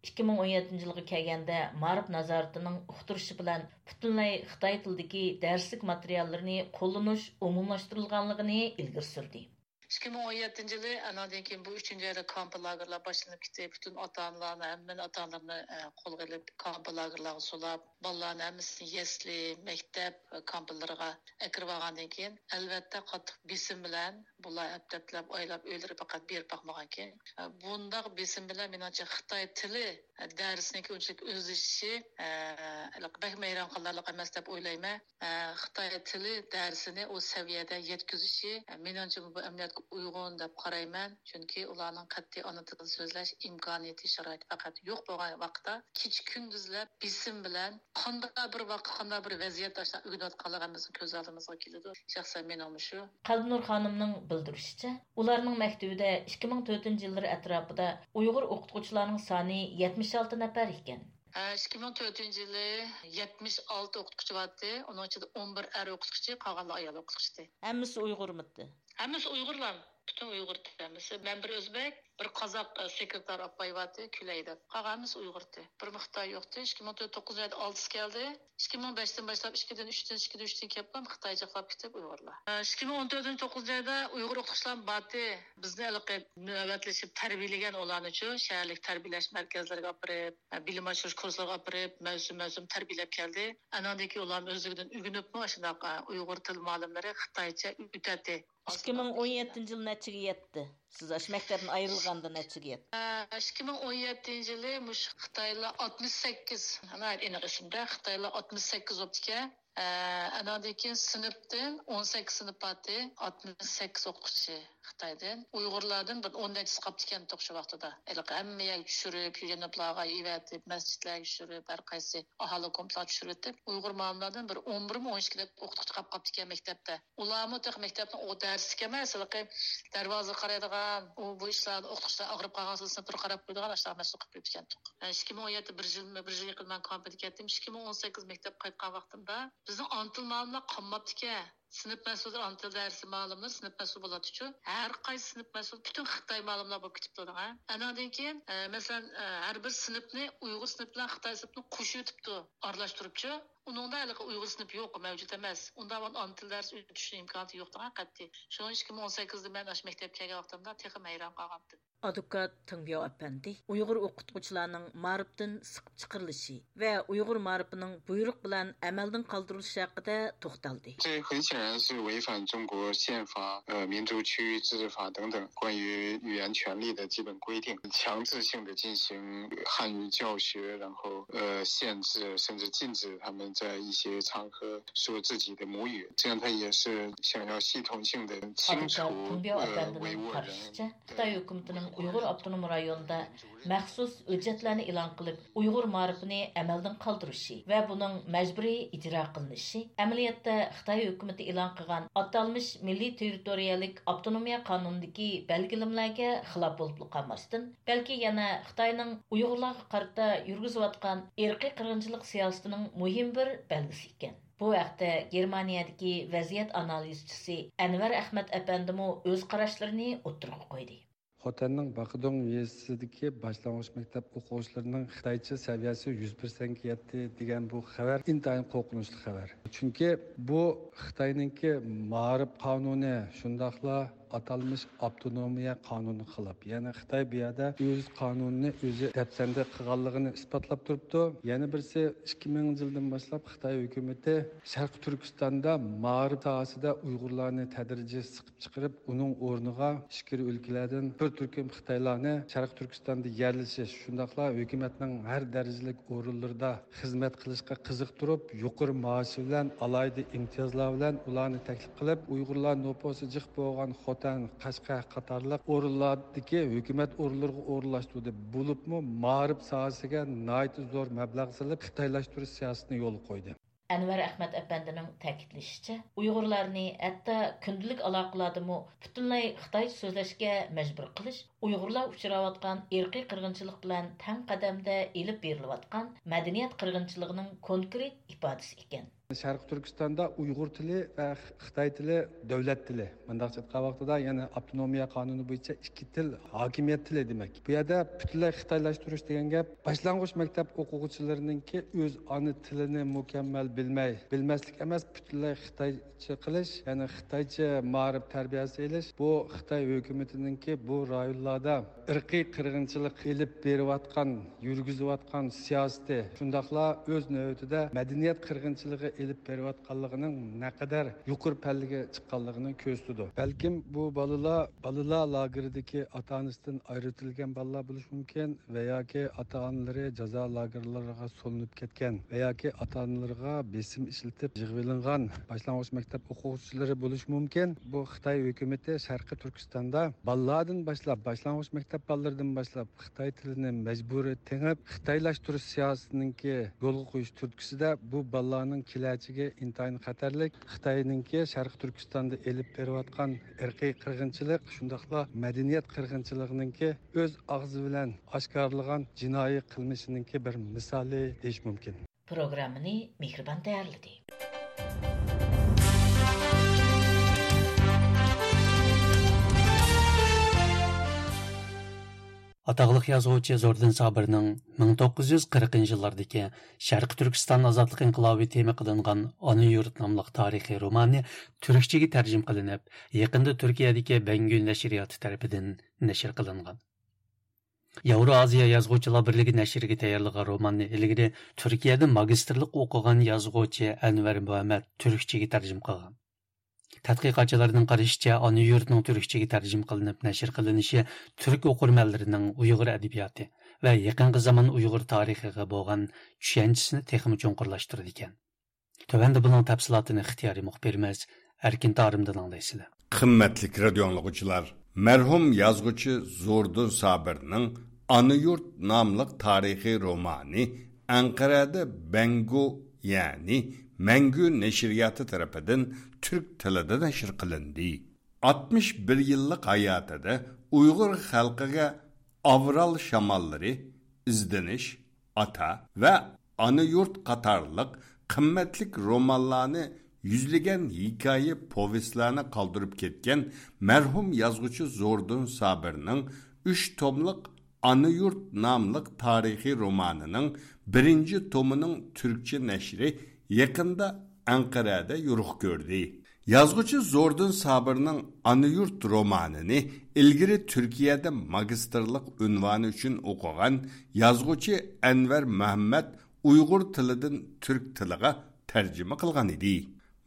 ئىككى مىڭ ئون يەتتىنچى يىلغا كەلگەندە مائارىپ نازارىتىنىڭ ئۇقتۇرۇشى بىلەن پۈتۈنلەي خىتاي تىلىدىكى دەرسلىك ماتېرىياللىرىنى قوللىنىش ئومۇملاشتۇرۇلغانلىقىنى ئىلگىرى سۈردى. ئىككى مىڭ ئون يەتتىنچى يىلى، ئانىڭدىن كېيىن بۇ ئۈچىنچى ئايدا كامپ لاگېرلار باشلىنىپ كېتىپ، پۈتۈن ئاتا-ئانىلارنى، ھەممىنى ئاتا-ئانىلىرىنى، ئە، قولغا ئېلىپ، كامپ لاگېرلارغا سولاپ، بالىلارنى ھەممىسىنى يەسلى، مەكتەپ، ئە، كامپلىرىغا ئەكىرىۋالغاندىن كېيىن، ئەلۋەتتە، قاتتىق بېسىم بىلەن بۇلار ھەپتە-ھەپتىلەپ ئايلاپ ئۆيلىرىگە پەقەت بېرىپ باقمىغانىكەن. ئە، بۇنداق بېسىم بىلەن، مېنىڭچە، خىتاي تىلى، ئە، دەرسنىڭكى ئۇنچىلىك ئۆزلىشىشى، ئە، بەكمۇ ھەيران قالارلىق ئەمەس دەپ ئويلايمەن. ئە، خىتاي تىلى دەرسىنى ئۇ سەۋىيەدە يەتكۈزۈشى، ئە، مېنىڭچە، بۇ ئەمەلىيەتكە ئۇيغۇن دەپ قارايمەن. چۈنكى ئۇلارنىڭ قەتئىي ئانا تىلىدا سۆزلەش ئىمكانىيىتى، شارائىتى پەقەت يوق بولغان ۋاقىتتا، كېچە-كۈندۈزلەپ بېسىم بىلەن قانداق بىر ۋاقىت، قانداق بىر ۋەزىيەتتە ئاشۇنداق ئۆگىنىۋاتقانلىقى ھەممىمىزنىڭ كۆز ئالدىمىزغا كېلىدۇ. شەخسەن مېنىڭمۇ شۇ. قەلبىنۇر خانىمنىڭ بىلدۈرۈشىچە، ئۇلارنىڭ مەكتىۋىدە ئىككى مىڭ تۆتىنچى يىللىرى ئەتراپىدا ئۇيغۇر ئوقۇتقۇچىلارنىڭ سانى يەتمىش ئالتە نەپەر ئىكەن. ئىككى مىڭ تۆتىنچى يىلى يەتمىش ئالتە ئوقۇتقۇچى بارتى، ئۇنىڭ ئىچىدە ئون بىر ئەر ئوقۇتقۇچى، قالغانلار ئايال ئوقۇتقۇچى. ھەممىسى ئۇيغۇرمىتى؟ ھەممىسى ئۇيغۇرلار، پۈتۈن ئۇيغۇر ھەممىسى. مەن بىر ئۆزبەك، بىر قازاق، ئە، سېكرېتار ئاپاي بارتى، كۈلەي دەپ. قالغان ھەممىسى ئۇيغۇرتى. بىرمۇ خىتاي يوقتى. ئىككى مىڭ تۆت، توققۇزىنچى ئايدا ئالتىسى كەلدى. ئىككى مىڭ بەشتىن باشلاپ، ئىككىدىن، ئۈچتىن، ئىككىدىن، ئۈچتىن كېلىپ، خىتايچىقلاپ كېتىپ ئۇيغۇرلار. ئىككى مىڭ ئون تۆتىنچى، توققۇزىنچى ئايدا ئۇيغۇر ئوقۇتقۇچىلار بارتى. بىزنى ھېلىقى نۆۋەتلىشىپ تەربىيەلىگەن ئۇلارنىچۇ، شەھەرلىك تەربىيەلەش مەركەزلىرىگە ئاپىرىپ، بىلىم ئاشۇرۇش كۇرسلىرىغا ئاپىرىپ، مەۋسۇم-مەۋسۇم تەربىيەلەپ كەلدى. ئاناندىن كېيىن ئۇلارمۇ ئۆزلۈكىدىن ئۆگىنىپمۇ، ئاشۇنداق، ئۇيغۇر تىل مۇئەللىملىرى خىتايچە ئۆتەتتى. ئىككى مىڭ ئون يەتتىنچى يىل نەچچىگە يەتتى؟ سىز ئاشۇ مەكتەپتىن ئايرىلغاندا نەچچىگە يەتتى؟ ئىككى مىڭ ئون يەتتىنچى يىلى مۇشۇ خىتايلار ئاتمىش سەككىز، ناھايىتى ئېنىق ئېسىمدە، خىتايلار ئاتمىش سەككىز بوپتىكەن. ئاناندىن كېيىن سىنىپتىن ئون سەككىز سىنىپ بارتى، ئاتمىش سەككىز ئوقۇتقۇچى خىتايدىن. ئۇيغۇرلاردىن بىر ئون نەچچىسى قاپتىكەنتۇق شۇ ۋاقتىدا. ھېلىقى ھەممە يەرگە چۈشۈرۈپ، يۇيەنلىپلارغا ئېۋەتىپ، مەسچىتلەرگە چۈشۈرۈپ، ھەر قايسى ئاھالە گۇرۇپپىلارغا چۈشۈرۈۋېتىپ، ئۇيغۇر مۇئەللىملەردىن بىر ئون بىرمۇ، ئون ئىككىدەك ئوقۇتقۇچى قاپقاپتىكەن مەكتەپتە. ئۇلارمۇ تېخى مەكتەپنىڭ ئۇ دەرسلىكى ئەمەس، ھېلىقى دەرۋازىغا قارايدىغان، ئۇ، بۇ ئىشلاردا ئوقۇتقۇچىلار ئاغرىپ قالغانسېرى سىنىپلىرىغا قاراپ قويىدىغان ئاشۇنداق مەسئۇل قىلىپ قويۇپتىكەنتۇق. ئىككى مىڭ ئون يەتتە، بىر يىل، بىر يىل يېقىن مەن كامپىدا كەتتىم. ئىككى مىڭ ئون سەككىز مەكتەپكە قايتقان ۋاقتىمدا بىزنىڭ ئانا تىل مۇئەللىملەر قالماپتىكەن. سىنىپ مەسئۇلى، ئانا تىل دەرسى مۇئەللىملىرى سىنىپ مەسئۇلى بولاتتىچۇ. ھەر قايسى سىنىپ مەسئۇلى پۈتۈن خىتاي مۇئەللىملار بولۇپ كېتىپتۇ دەڭە. ئاناندىن كېيىن، ئە، مەسىلەن، ئە، ھەر بىر سىنىپنى ئۇيغۇر سىنىپى بىلەن خىتاي سىنىپىنى قوشۇۋېتىپتۇ، ئارىلاشتۇرۇپچۇ. ئۇنىڭدا ھېلىقى ئۇيغۇر سىنىپى يوق، مەۋجۇت ئەمەس. ئۇنداق ئانا تىل دەرسى ئۆتۈشنىڭ ئىمكانىيىتى يوق دەڭە قەتئىي. شۇڭا ئىككى مىڭ ئون سەككىزدە مەن ئاشۇ مەكتەپكە كەلگەن ۋاقتىمدا تېخىمۇ ھەيران قالغانتىم. ئادۋوكات تېڭبياۋ ئەپەندى ئۇيغۇر ئوقۇتقۇچىلارنىڭ مائارىپتىن سىقىپ چىقىرىلىشى ۋە ئۇيغۇر مائارىپىنىڭ بۇيرۇق بىلەن ئەمەلدىن قالدۇرۇلۇشى ھەققىدە توختالدى. 这很显然是违反中国宪法、呃民族区域自治法等等关于语言权利的基本规定，强制性的进行汉语教学，然后呃限制甚至禁止他们在一些场合说自己的母语，这样他也是想要系统性的清除呃维吾尔人。 خىتاي ھۆكۈمىتىنىڭ ئۇيغۇر ئاپتونوم رايونىدا مەخسۇس ھۆججەتلەرنى ئېلان قىلىپ، ئۇيغۇر مائارىپىنى ئەمەلدىن قالدۇرۇشى ۋە بۇنىڭ مەجبۇرىي ئىجرا قىلىنىشى ئەمەلىيەتتە خىتاي ھۆكۈمىتى ئېلان قىلغان ئاتالمىش مىللىي تېررىتورىيەلىك ئاپتونومىيە قانۇنىدىكى بەلگىلىمىلەرگە خىلاپ بولۇپلا قالماستىن، بەلكى يەنە خىتاينىڭ ئۇيغۇرلارغا قارىتا يۈرگۈزۈۋاتقان ئىرقىي قىرغىنچىلىق سىياسىتىنىڭ مۇھىم بىر بەلگىسى ئىكەن. بۇ ھەقتە گېرمانىيەدىكى ۋەزىيەت ئانالىزچىسى ئەنۋەر ئەخمەت ئەپەندىمۇ ئۆز قاراشلىرىنى ئوتتۇرىغا قويدى. خوتەننىڭ باقىدۇڭ يېزىسىدىكى باشلانغۇچ مەكتەپ ئوقۇغۇچىلىرىنىڭ خىتايچە سەۋىيەسى يۈز پىرسەنتكە يەتتى دېگەن بۇ خەۋەر ئىنتايىن قورقۇنچلۇق خەۋەر. چۈنكى بۇ خىتاينىڭكى مائارىپ قانۇنى، شۇنداقلا ئاتالمىش ئاپتونومىيە قانۇنىغا خىلاپ. يەنى خىتاي بۇ يەردە ئۆز قانۇنىنى ئۆزى دەپسەندە قىلغانلىقىنى ئىسپاتلاپ تۇرۇپتۇ. يەنە بىرسى، ئىككى مىڭىنچى يىلدىن باشلاپ خىتاي ھۆكۈمىتى شەرقىي تۈركىستاندا مائارىپ ساھەسىدە ئۇيغۇرلارنى تەدرىجىي سىقىپ چىقىرىپ، ئۇنىڭ ئورنىغا ئىچكىرى ئۆلكىلەردىن بىر تۈركۈم خىتايلارنى شەرقىي تۈركىستاندا يەرلىشىش، شۇنداقلا ھۆكۈمەتنىڭ ھەر دەرىجىلىك ئورۇنلىرىدا خىزمەت قىلىشقا قىزىقتۇرۇپ، يۇقىرى مائاش بىلەن، ئالاھىدە ئىمتىيازلار بىلەن ئۇلارنى تەكلىپ قىلىپ، ئۇيغۇرلار نوپۇسى جىق بولغان خوتەن، قەشقەر قاتارلىق ئورۇنلاردىكى ھۆكۈمەت ئورۇنلىرىغا ئورۇنلاشتۇردى. بولۇپمۇ مائارىپ ساھەسىگە ناھايىتى زور مەبلەغ سېلىپ، خىتايلاشتۇرۇش سىياسىتىنى يولغا قويدى. ئەنۋەر ئەخمەت ئەپەندىنىڭ تەكىتلىشىچە، ئۇيغۇرلارنى ھەتتا كۈندىلىك ئالاقىلەردىمۇ پۈتۈنلەي خىتايچە سۆزلەشكە مەجبۇر قىلىش ئۇيغۇرلار ئۇچراۋاتقان ئىرقىي قىرغىنچىلىق بىلەن تەڭ قەدەمدە ئېلىپ بېرىلىۋاتقان مەدەنىيەت قىرغىنچىلىقىنىڭ كونكرېت ئىپادىسى ئىكەن. شەرقىي تۈركىستاندا ئۇيغۇر تىلى ۋە خىتاي تىلى دۆلەت تىلى. مۇنداقچە ئېيتقان ۋاقتىدا، يەنى ئاپتونومىيە قانۇنى بويىچە ئىككى تىل ھاكىمىيەت تىلى دېمەك. بۇ يەردە پۈتۈنلەي خىتايلاشتۇرۇش دېگەن گەپ باشلانغۇچ مەكتەپ ئوقۇغۇچىلىرىنىڭكى ئۆز ئانا تىلىنى مۇكەممەل بىلمەي، بىلمەسلىك ئەمەس، پۈتۈنلەي خىتايچە قىلىش، يەنى خىتايچە مائارىپ تەربىيەسى ئېلىش، بۇ خىتاي ھۆكۈمىتىنىڭكى بۇ رايونلاردا ئىرقىي قىرغىنچىلىق ئېلىپ بېرىۋاتقان، يۈرگۈزۈۋاتقان سىياسىتى، شۇنداقلا ئۆز نۆۋىتىدە مەدەنىيەت قىرغىنچىلىقى ئېلىپ بېرىۋاتقانلىقىنىڭ نەقەدەر يۇقىرى پەللىگە چىققانلىقىنى كۆرسىتىدۇ. بەلكىم بۇ بالىلار بالىلار لاگېرىدىكى ئاتا-ئانىسىدىن ئايرىۋېتىلگەن بالىلار بولۇشى مۇمكىن ۋە ياكى ئاتا-ئانىلىرى جازا لاگېرلىرىغا سولىنىپ كەتكەن ۋە ياكى ئاتا-ئانىلىرىغا بېسىم ئىشلىتىپ يىغىۋېلىنغان باشلانغۇچ مەكتەپ ئوقۇغۇچىلىرى بولۇشى مۇمكىن. بۇ خىتاي ھۆكۈمىتى شەرقىي تۈركىستاندا بالىلاردىن باشلاپ، باشلانغۇچ مەكتەپ بالىلىرىدىن باشلاپ خىتاي تىلىنى مەجبۇرىي تېڭىپ، خىتايلاشتۇرۇش سىياسىتىنىڭكى يولغا قويۇش تۈرتكىسىدە بۇ بالىلارنىڭ كېلەچىكى ئىنتايىن خەتەرلىك. خىتاينىڭكى شەرقىي تۈركىستاندا ئېلىپ بېرىۋاتقان ئىرقىي قىرغىنچىلىق، شۇنداقلا مەدەنىيەت قىرغىنچىلىقىنىڭكى ئۆز ئاغزى بىلەن ئاشكارىلىغان جىنايى قىلمىشىنىڭكى بىر مىسالى دېيىش مۇمكىن. پروگراممىنى مېھرىبان تەييارلىدى. ئاتاقلىق يازغۇچى زوردۇن سابىرنىڭ مىڭ توققۇز يۈز قىرىقىنچى يىللاردىكى شەرقىي تۈركىستان ئازادلىق ئىنقىلابى تېما قىلىنغان ئانا يۇرت ناملىق تارىخىي رومانى تۈركچىگە تەرجىمە قىلىنىپ، يېقىندا تۈركىيەدىكى بەڭگۈ نەشرىياتى تەرىپىدىن نەشر قىلىنغان. ياۋرو ئازىيا يازغۇچىلار بىرلىكى نەشرىگە تەييارلىغان روماننى ئىلگىرى تۈركىيەدە ماگىستىرلىق ئوقۇغان يازغۇچى ئەنۋەر مۇھەممەد تۈركچىگە تەرجىمە قىلغان. تەتقىقاتچىلارنىڭ قارىشىچە، ئانا يۇرتنىڭ تۈركچىگە تەرجىمە قىلىنىپ نەشر قىلىنىشى تۈرك ئوقۇرمەنلىرىنىڭ ئۇيغۇر ئەدەبىياتى ۋە يېقىنقى زامان ئۇيغۇر تارىخىغا بولغان چۈشەنچىسىنى تېخىمۇ چوڭقۇرلاشتۇرىدىكەن. تۆۋەندە بۇنىڭ تەپسىلاتىنى ئىختىيارىي مۇخبىرىمىز ئەركىن تارىمدىن ئاڭلايسىلەر. قىممەتلىك رادىيو ئاڭلىغۇچىلار، مەرھۇم يازغۇچى زوردۇن سابىرنىڭ ئانا يۇرت ناملىق تارىخىي رومانى ئەنقەرەدە بەنگو، يەنى مەڭگۈ نەشرىياتى تەرىپىدىن تۈرك تىلىدا نەشر قىلىندى. ئاتمىش بىر يىللىق ھاياتىدا ئۇيغۇر خەلقىگە ئاۋرال شاماللىرى، ئىزدىنىش، ئاتا ۋە ئانا يۇرت قاتارلىق قىممەتلىك رومانلارنى، يۈزلىگەن ھېكايە پوۋېستلارنى قالدۇرۇپ كەتكەن مەرھۇم يازغۇچى زوردۇن سابىرنىڭ ئۈچ توملۇق ئانا يۇرت ناملىق تارىخىي رومانىنىڭ بىرىنچى تومىنىڭ تۈركچە نەشرى يېقىندا ئەنقەرەدە يورۇق كۆردى. يازغۇچى زوردۇن سابىرنىڭ ئانا يۇرت رومانىنى ئىلگىرى تۈركىيەدە ماگىستىرلىق ئۇنۋانى ئۈچۈن ئوقۇغان يازغۇچى ئەنۋەر مۇھەممەد ئۇيغۇر تىلىدىن تۈرك تىلىغا تەرجىمە قىلغان ئىدى.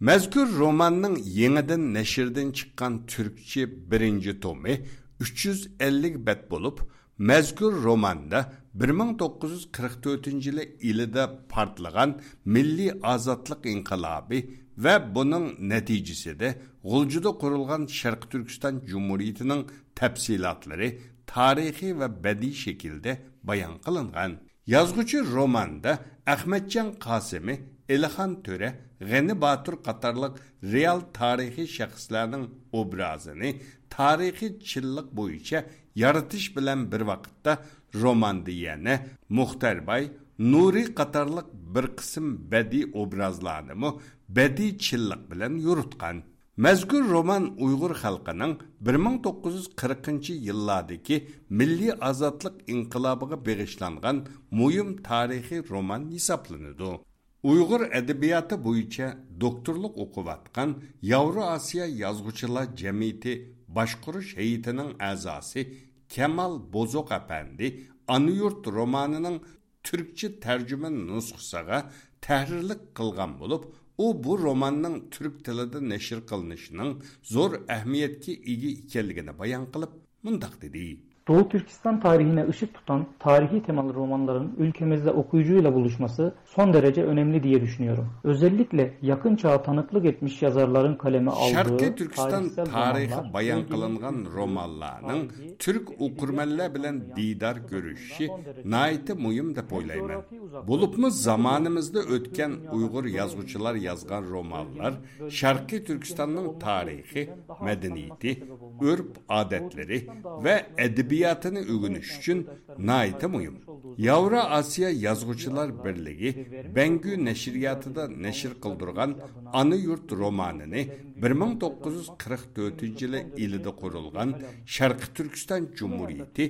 مەزكۇر روماننىڭ يېڭىدىن نەشردىن چىققان تۈركچە بىرىنچى تومى ئۈچ يۈز ئەللىك بەت بولۇپ، مەزكۇر روماندا بىر مىڭ توققۇز يۈز قىرىق تۆتىنچى يىلى ئىلىدا پارتلىغان مىللىي ئازادلىق ئىنقىلابى ۋە بۇنىڭ نەتىجىسىدە غۇلجىدا قۇرۇلغان شەرقىي تۈركىستان جۇمھۇرىيىتىنىڭ تەپسىلاتلىرى تارىخىي ۋە بەدىئىي شەكىلدە بايان قىلىنغان. يازغۇچى روماندا ئەخمەتجان قاسىمى، ئېلىخان تۆرە، غېنى باتۇر قاتارلىق رېئال تارىخىي شەخسلەرنىڭ ئوبرازىنى تارىخىي چىنلىق بويىچە يارىتىش بىلەن بىر ۋاقىتتا، روماندا يەنە مۇختەر باي، نۇرى قاتارلىق بىر قىسىم بەدىئىي ئوبرازلارنىمۇ بەدىئىي چىنلىق بىلەن يورۇتقان. مەزكۇر رومان ئۇيغۇر خەلقىنىڭ بىر مىڭ توققۇز يۈز قىرىقىنچى يىللاردىكى مىللىي ئازادلىق ئىنقىلابىغا بېغىشلانغان مۇھىم تارىخىي رومان ھېسابلىنىدۇ. ئۇيغۇر ئەدەبىياتى بويىچە دوكتورلۇق ئوقۇۋاتقان ياۋرو ئاسىيا يازغۇچىلار جەمئىيىتى باشقۇرۇش ھەيئىتىنىڭ ئەزاسى كامال بوزوق ئەپەندى ئانا يۇرت رومانىنىڭ تۈركچە تەرجىمە نۇسخىسىغا تەھرىرلىك قىلغان بولۇپ، ئۇ بۇ روماننىڭ تۈرك تىلىدا نەشر قىلىنىشىنىڭ زور ئەھمىيەتكە ئىگە ئىكەنلىكىنى بايان قىلىپ، مۇنداق دېدى. Doğu Türkistan tarihine ışık tutan tarihi temalı romanların ülkemizde okuyucuyla buluşması son derece önemli diye düşünüyorum. Özellikle yakın çağa tanıklık etmiş yazarların kaleme aldığı شەرقىي تۈركىستان تارىخى بايان قىلىنغان رومانلارنىڭ تۈرك ئوقۇرمەنلەر بىلەن دىدار كۆرۈشۈشى ناھايىتى مۇھىم دەپ ئويلايمەن. بولۇپمۇ زامانىمىزدا ئۆتكەن ئۇيغۇر يازغۇچىلار يازغان رومانلار شەرقىي تۈركىستاننىڭ تارىخى، مەدەنىيىتى، ئۆرپ-ئادەتلىرى ۋە ئەدەبىياتىنى ئۆگىنىش ئۈچۈن ناھايىتى مۇھىم. ياۋرو ئاسىيا يازغۇچىلار بىرلىكى بەڭگۈ نەشرىياتىدا نەشر قىلدۇرغان ئانا يۇرت رومانىنى بىر مىڭ توققۇز يۈز قىرىق تۆتىنچى يىلى ئىلىدا قۇرۇلغان شەرقىي تۈركىستان جۇمھۇرىيىتى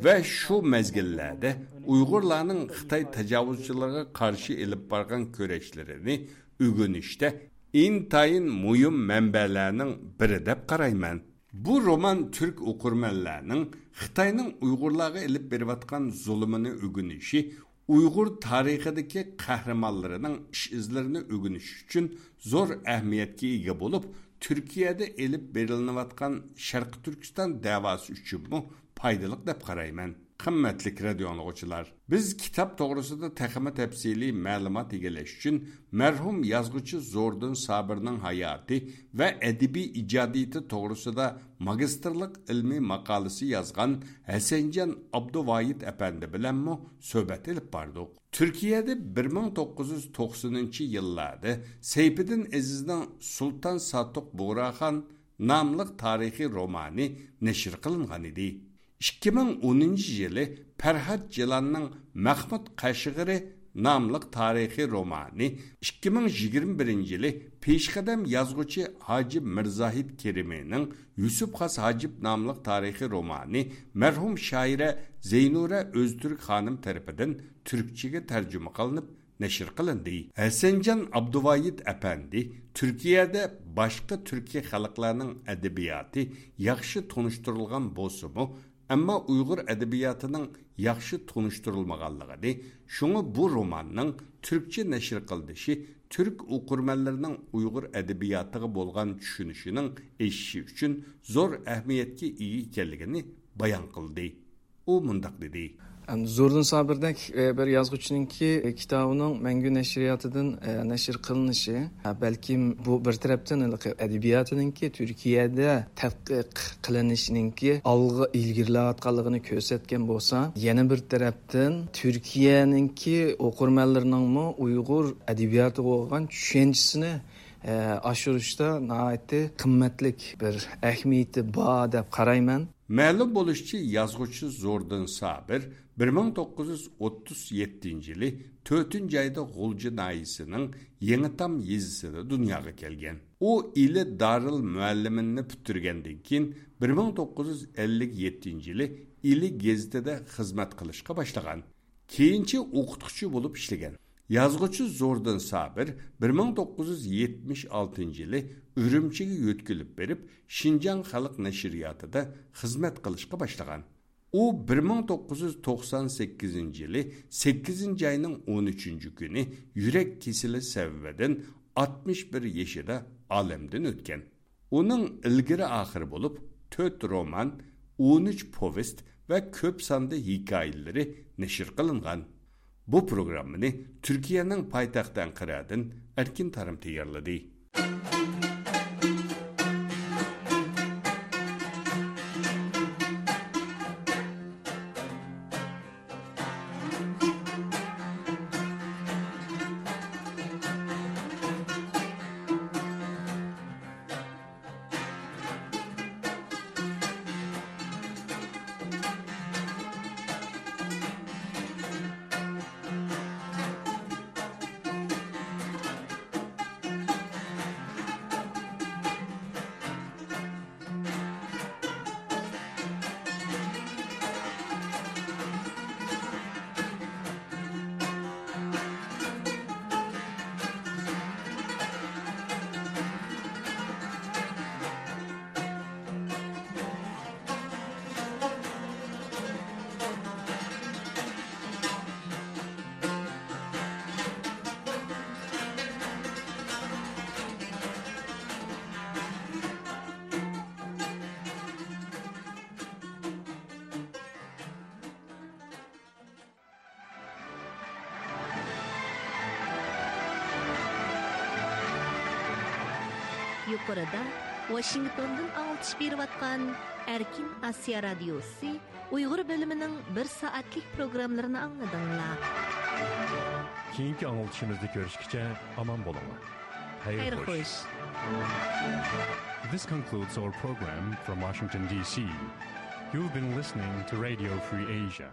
ۋە شۇ مەزگىللەردە ئۇيغۇرلارنىڭ خىتاي تاجاۋۇزچىلىرىغا قارشى ئېلىپ بارغان كۈرەشلىرىنى ئۆگىنىشتە ئىنتايىن مۇھىم مەنبەلەرنىڭ بىرى دەپ قارايمەن. بۇ رومان تۈرك ئوقۇرمەنلەرنىڭ خىتاينىڭ ئۇيغۇرلارغا ئېلىپ بېرىۋاتقان زۇلۇمىنى ئۆگىنىشى، ئۇيغۇر تارىخىدىكى قەھرىمانلىرىنىڭ ئىش-ئىزلىرىنى ئۆگىنىش ئۈچۈن زور ئەھمىيەتكە ئىگە بولۇپ، تۈركىيەدە ئېلىپ بېرىلىنىۋاتقان شەرقىي تۈركىستان دەۋاسى ئۈچۈنمۇ پايدىلىق دەپ قارايمەن. قىممەتلىك رادىيو ئاڭلىغۇچىلار، بىز كىتاب توغرىسىدا تېخىمۇ تەپسىلىي مەلۇمات ئىگىلەش ئۈچۈن مەرھۇم يازغۇچى زوردۇن سابىرنىڭ ھاياتى ۋە ئەدەبىي ئىجادىيىتى توغرىسىدا ماگىستىرلىق ئىلمىي ماقالىسى يازغان ھەسەنجان ئابدۇۋايىت ئەپەندى بىلەنمۇ سۆھبەت ئېلىپ باردۇق. تۈركىيەدە بىر مىڭ توققۇز يۈز توقسىنىنچى يىللاردا سەيپىدىن ئەزىزنىڭ سۇلتان ساتۇق بۇغراخان ناملىق تارىخىي رومانى نەشر قىلىنغان ئىدى. ئىككى مىڭ ئونىنچى يىلى پەرھات جىلاننىڭ مەخمۇت قەشقىرى ناملىق تارىخىي رومانى، ئىككى مىڭ يىگىرمە بىرىنچى يىلى پېشقەدەم يازغۇچى ھاجىپ مىرزاھىت كېرىمىنىڭ يۈسۈپ خاس ھاجىپ ناملىق تارىخىي رومانى مەرھۇم شائىرە زەينۇرە ئۆزتۈرك خانىم تەرىپىدىن تۈركچىگە تەرجىمە قىلىنىپ نەشر قىلىندى. ھەسەنجان ئابدۇۋايىت ئەپەندى تۈركىيەدە باشقا تۈركىي خەلقلەرنىڭ ئەدەبىياتى ياخشى تونۇشتۇرۇلغان بولسىمۇ، ئەمما ئۇيغۇر ئەدەبىياتىنىڭ ياخشى تونۇشتۇرۇلمىغانلىقىنى، شۇڭا بۇ روماننىڭ تۈركچە نەشر قىلىنىشى تۈرك ئوقۇرمەنلىرىنىڭ ئۇيغۇر ئەدەبىياتىغا بولغان چۈشىنىشىنىڭ ئېشىشى ئۈچۈن زور ئەھمىيەتكە ئىگە ئىكەنلىكىنى بايان قىلدى. ئۇ مۇنداق دېدى. زوردۇن سابىردەك، ئە، بىر يازغۇچىنىڭكى، ئە، كىتابىنىڭ مەڭگۈ نەشرىياتىدىن، ئە، نەشر قىلىنىشى، ئە، بەلكىم بۇ بىر تەرەپتىن ھېلىقى ئەدەبىياتىنىڭكى تۈركىيەدە تەتقىق قىلىنىشىنىڭكى ئالغا ئىلگىرىلەۋاتقانلىقىنى كۆرسەتكەن بولسا، يەنە بىر تەرەپتىن تۈركىيەنىڭكى ئوقۇرمەنلىرىنىڭمۇ ئۇيغۇر ئەدەبىياتىغا بولغان چۈشەنچىسىنى، ئە، ئاشۇرۇشتا ناھايىتى قىممەتلىك بىر ئەھمىيىتى بار دەپ قارايمەن. مەلۇم بولۇشىچە، يازغۇچى زوردۇن سابىر بىر مىڭ توققۇز يۈز ئوتتۇز يەتتىنچى يىلى تۆتىنچى ئايدا غۇلجا ناھىيىسىنىڭ يېڭىتام يېزىسىدا دۇنياغا كەلگەن. ئۇ ئىلى دارىل مۇئەللىمىننى پۈتتۈرگەندىن كېيىن، بىر مىڭ توققۇز يۈز ئەللىك يەتتىنچى يىلى ئىلى گېزىتىدە خىزمەت قىلىشقا باشلىغان. كېيىنچە ئوقۇتقۇچى بولۇپ ئىشلىگەن. يازغۇچى زوردۇن سابىر بىر مىڭ توققۇز يۈز يەتمىش ئالتىنچى يىلى ئۈرۈمچىگە يۆتكىلىپ بېرىپ، شىنجاڭ خەلق نەشرىياتىدا خىزمەت قىلىشقا باشلىغان. ئۇ بىر مىڭ توققۇز يۈز توقسان سەككىزىنچى يىلى سەككىزىنچى ئاينىڭ ئون ئۈچىنچى كۈنى يۈرەك كېسىلى سەۋەبىدىن ئاتمىش بىر يېشىدا ئالەمدىن ئۆتكەن. ئۇنىڭ ئىلگىرى-ئاخىرى بولۇپ تۆت رومان، ئون ئۈچ پوۋېست ۋە كۆپ ساندا ھېكايىلىرى نەشر قىلىنغان. بۇ پروگراممىنى تۈركىيەنىڭ پايتەختى ئەنقەرەدىن ئەركىن تارىم تەييارلىدى. يۇقىرىدا ۋاشىنگتوندىن ئاڭلىتىش بېرىۋاتقان ئەركىن ئاسىيا رادىيوسى ئۇيغۇر بۆلۈمىنىڭ بىر سائەتلىك پروگراممىلىرىنى ئاڭلىدىڭلار. كېيىنكى ئاڭلىتىشىمىزدا كۆرۈشكىچە ئامان بولۇڭلار. خەير خوش. This concludes our program from Washington, D C. You've been listening to Radio Free Asia.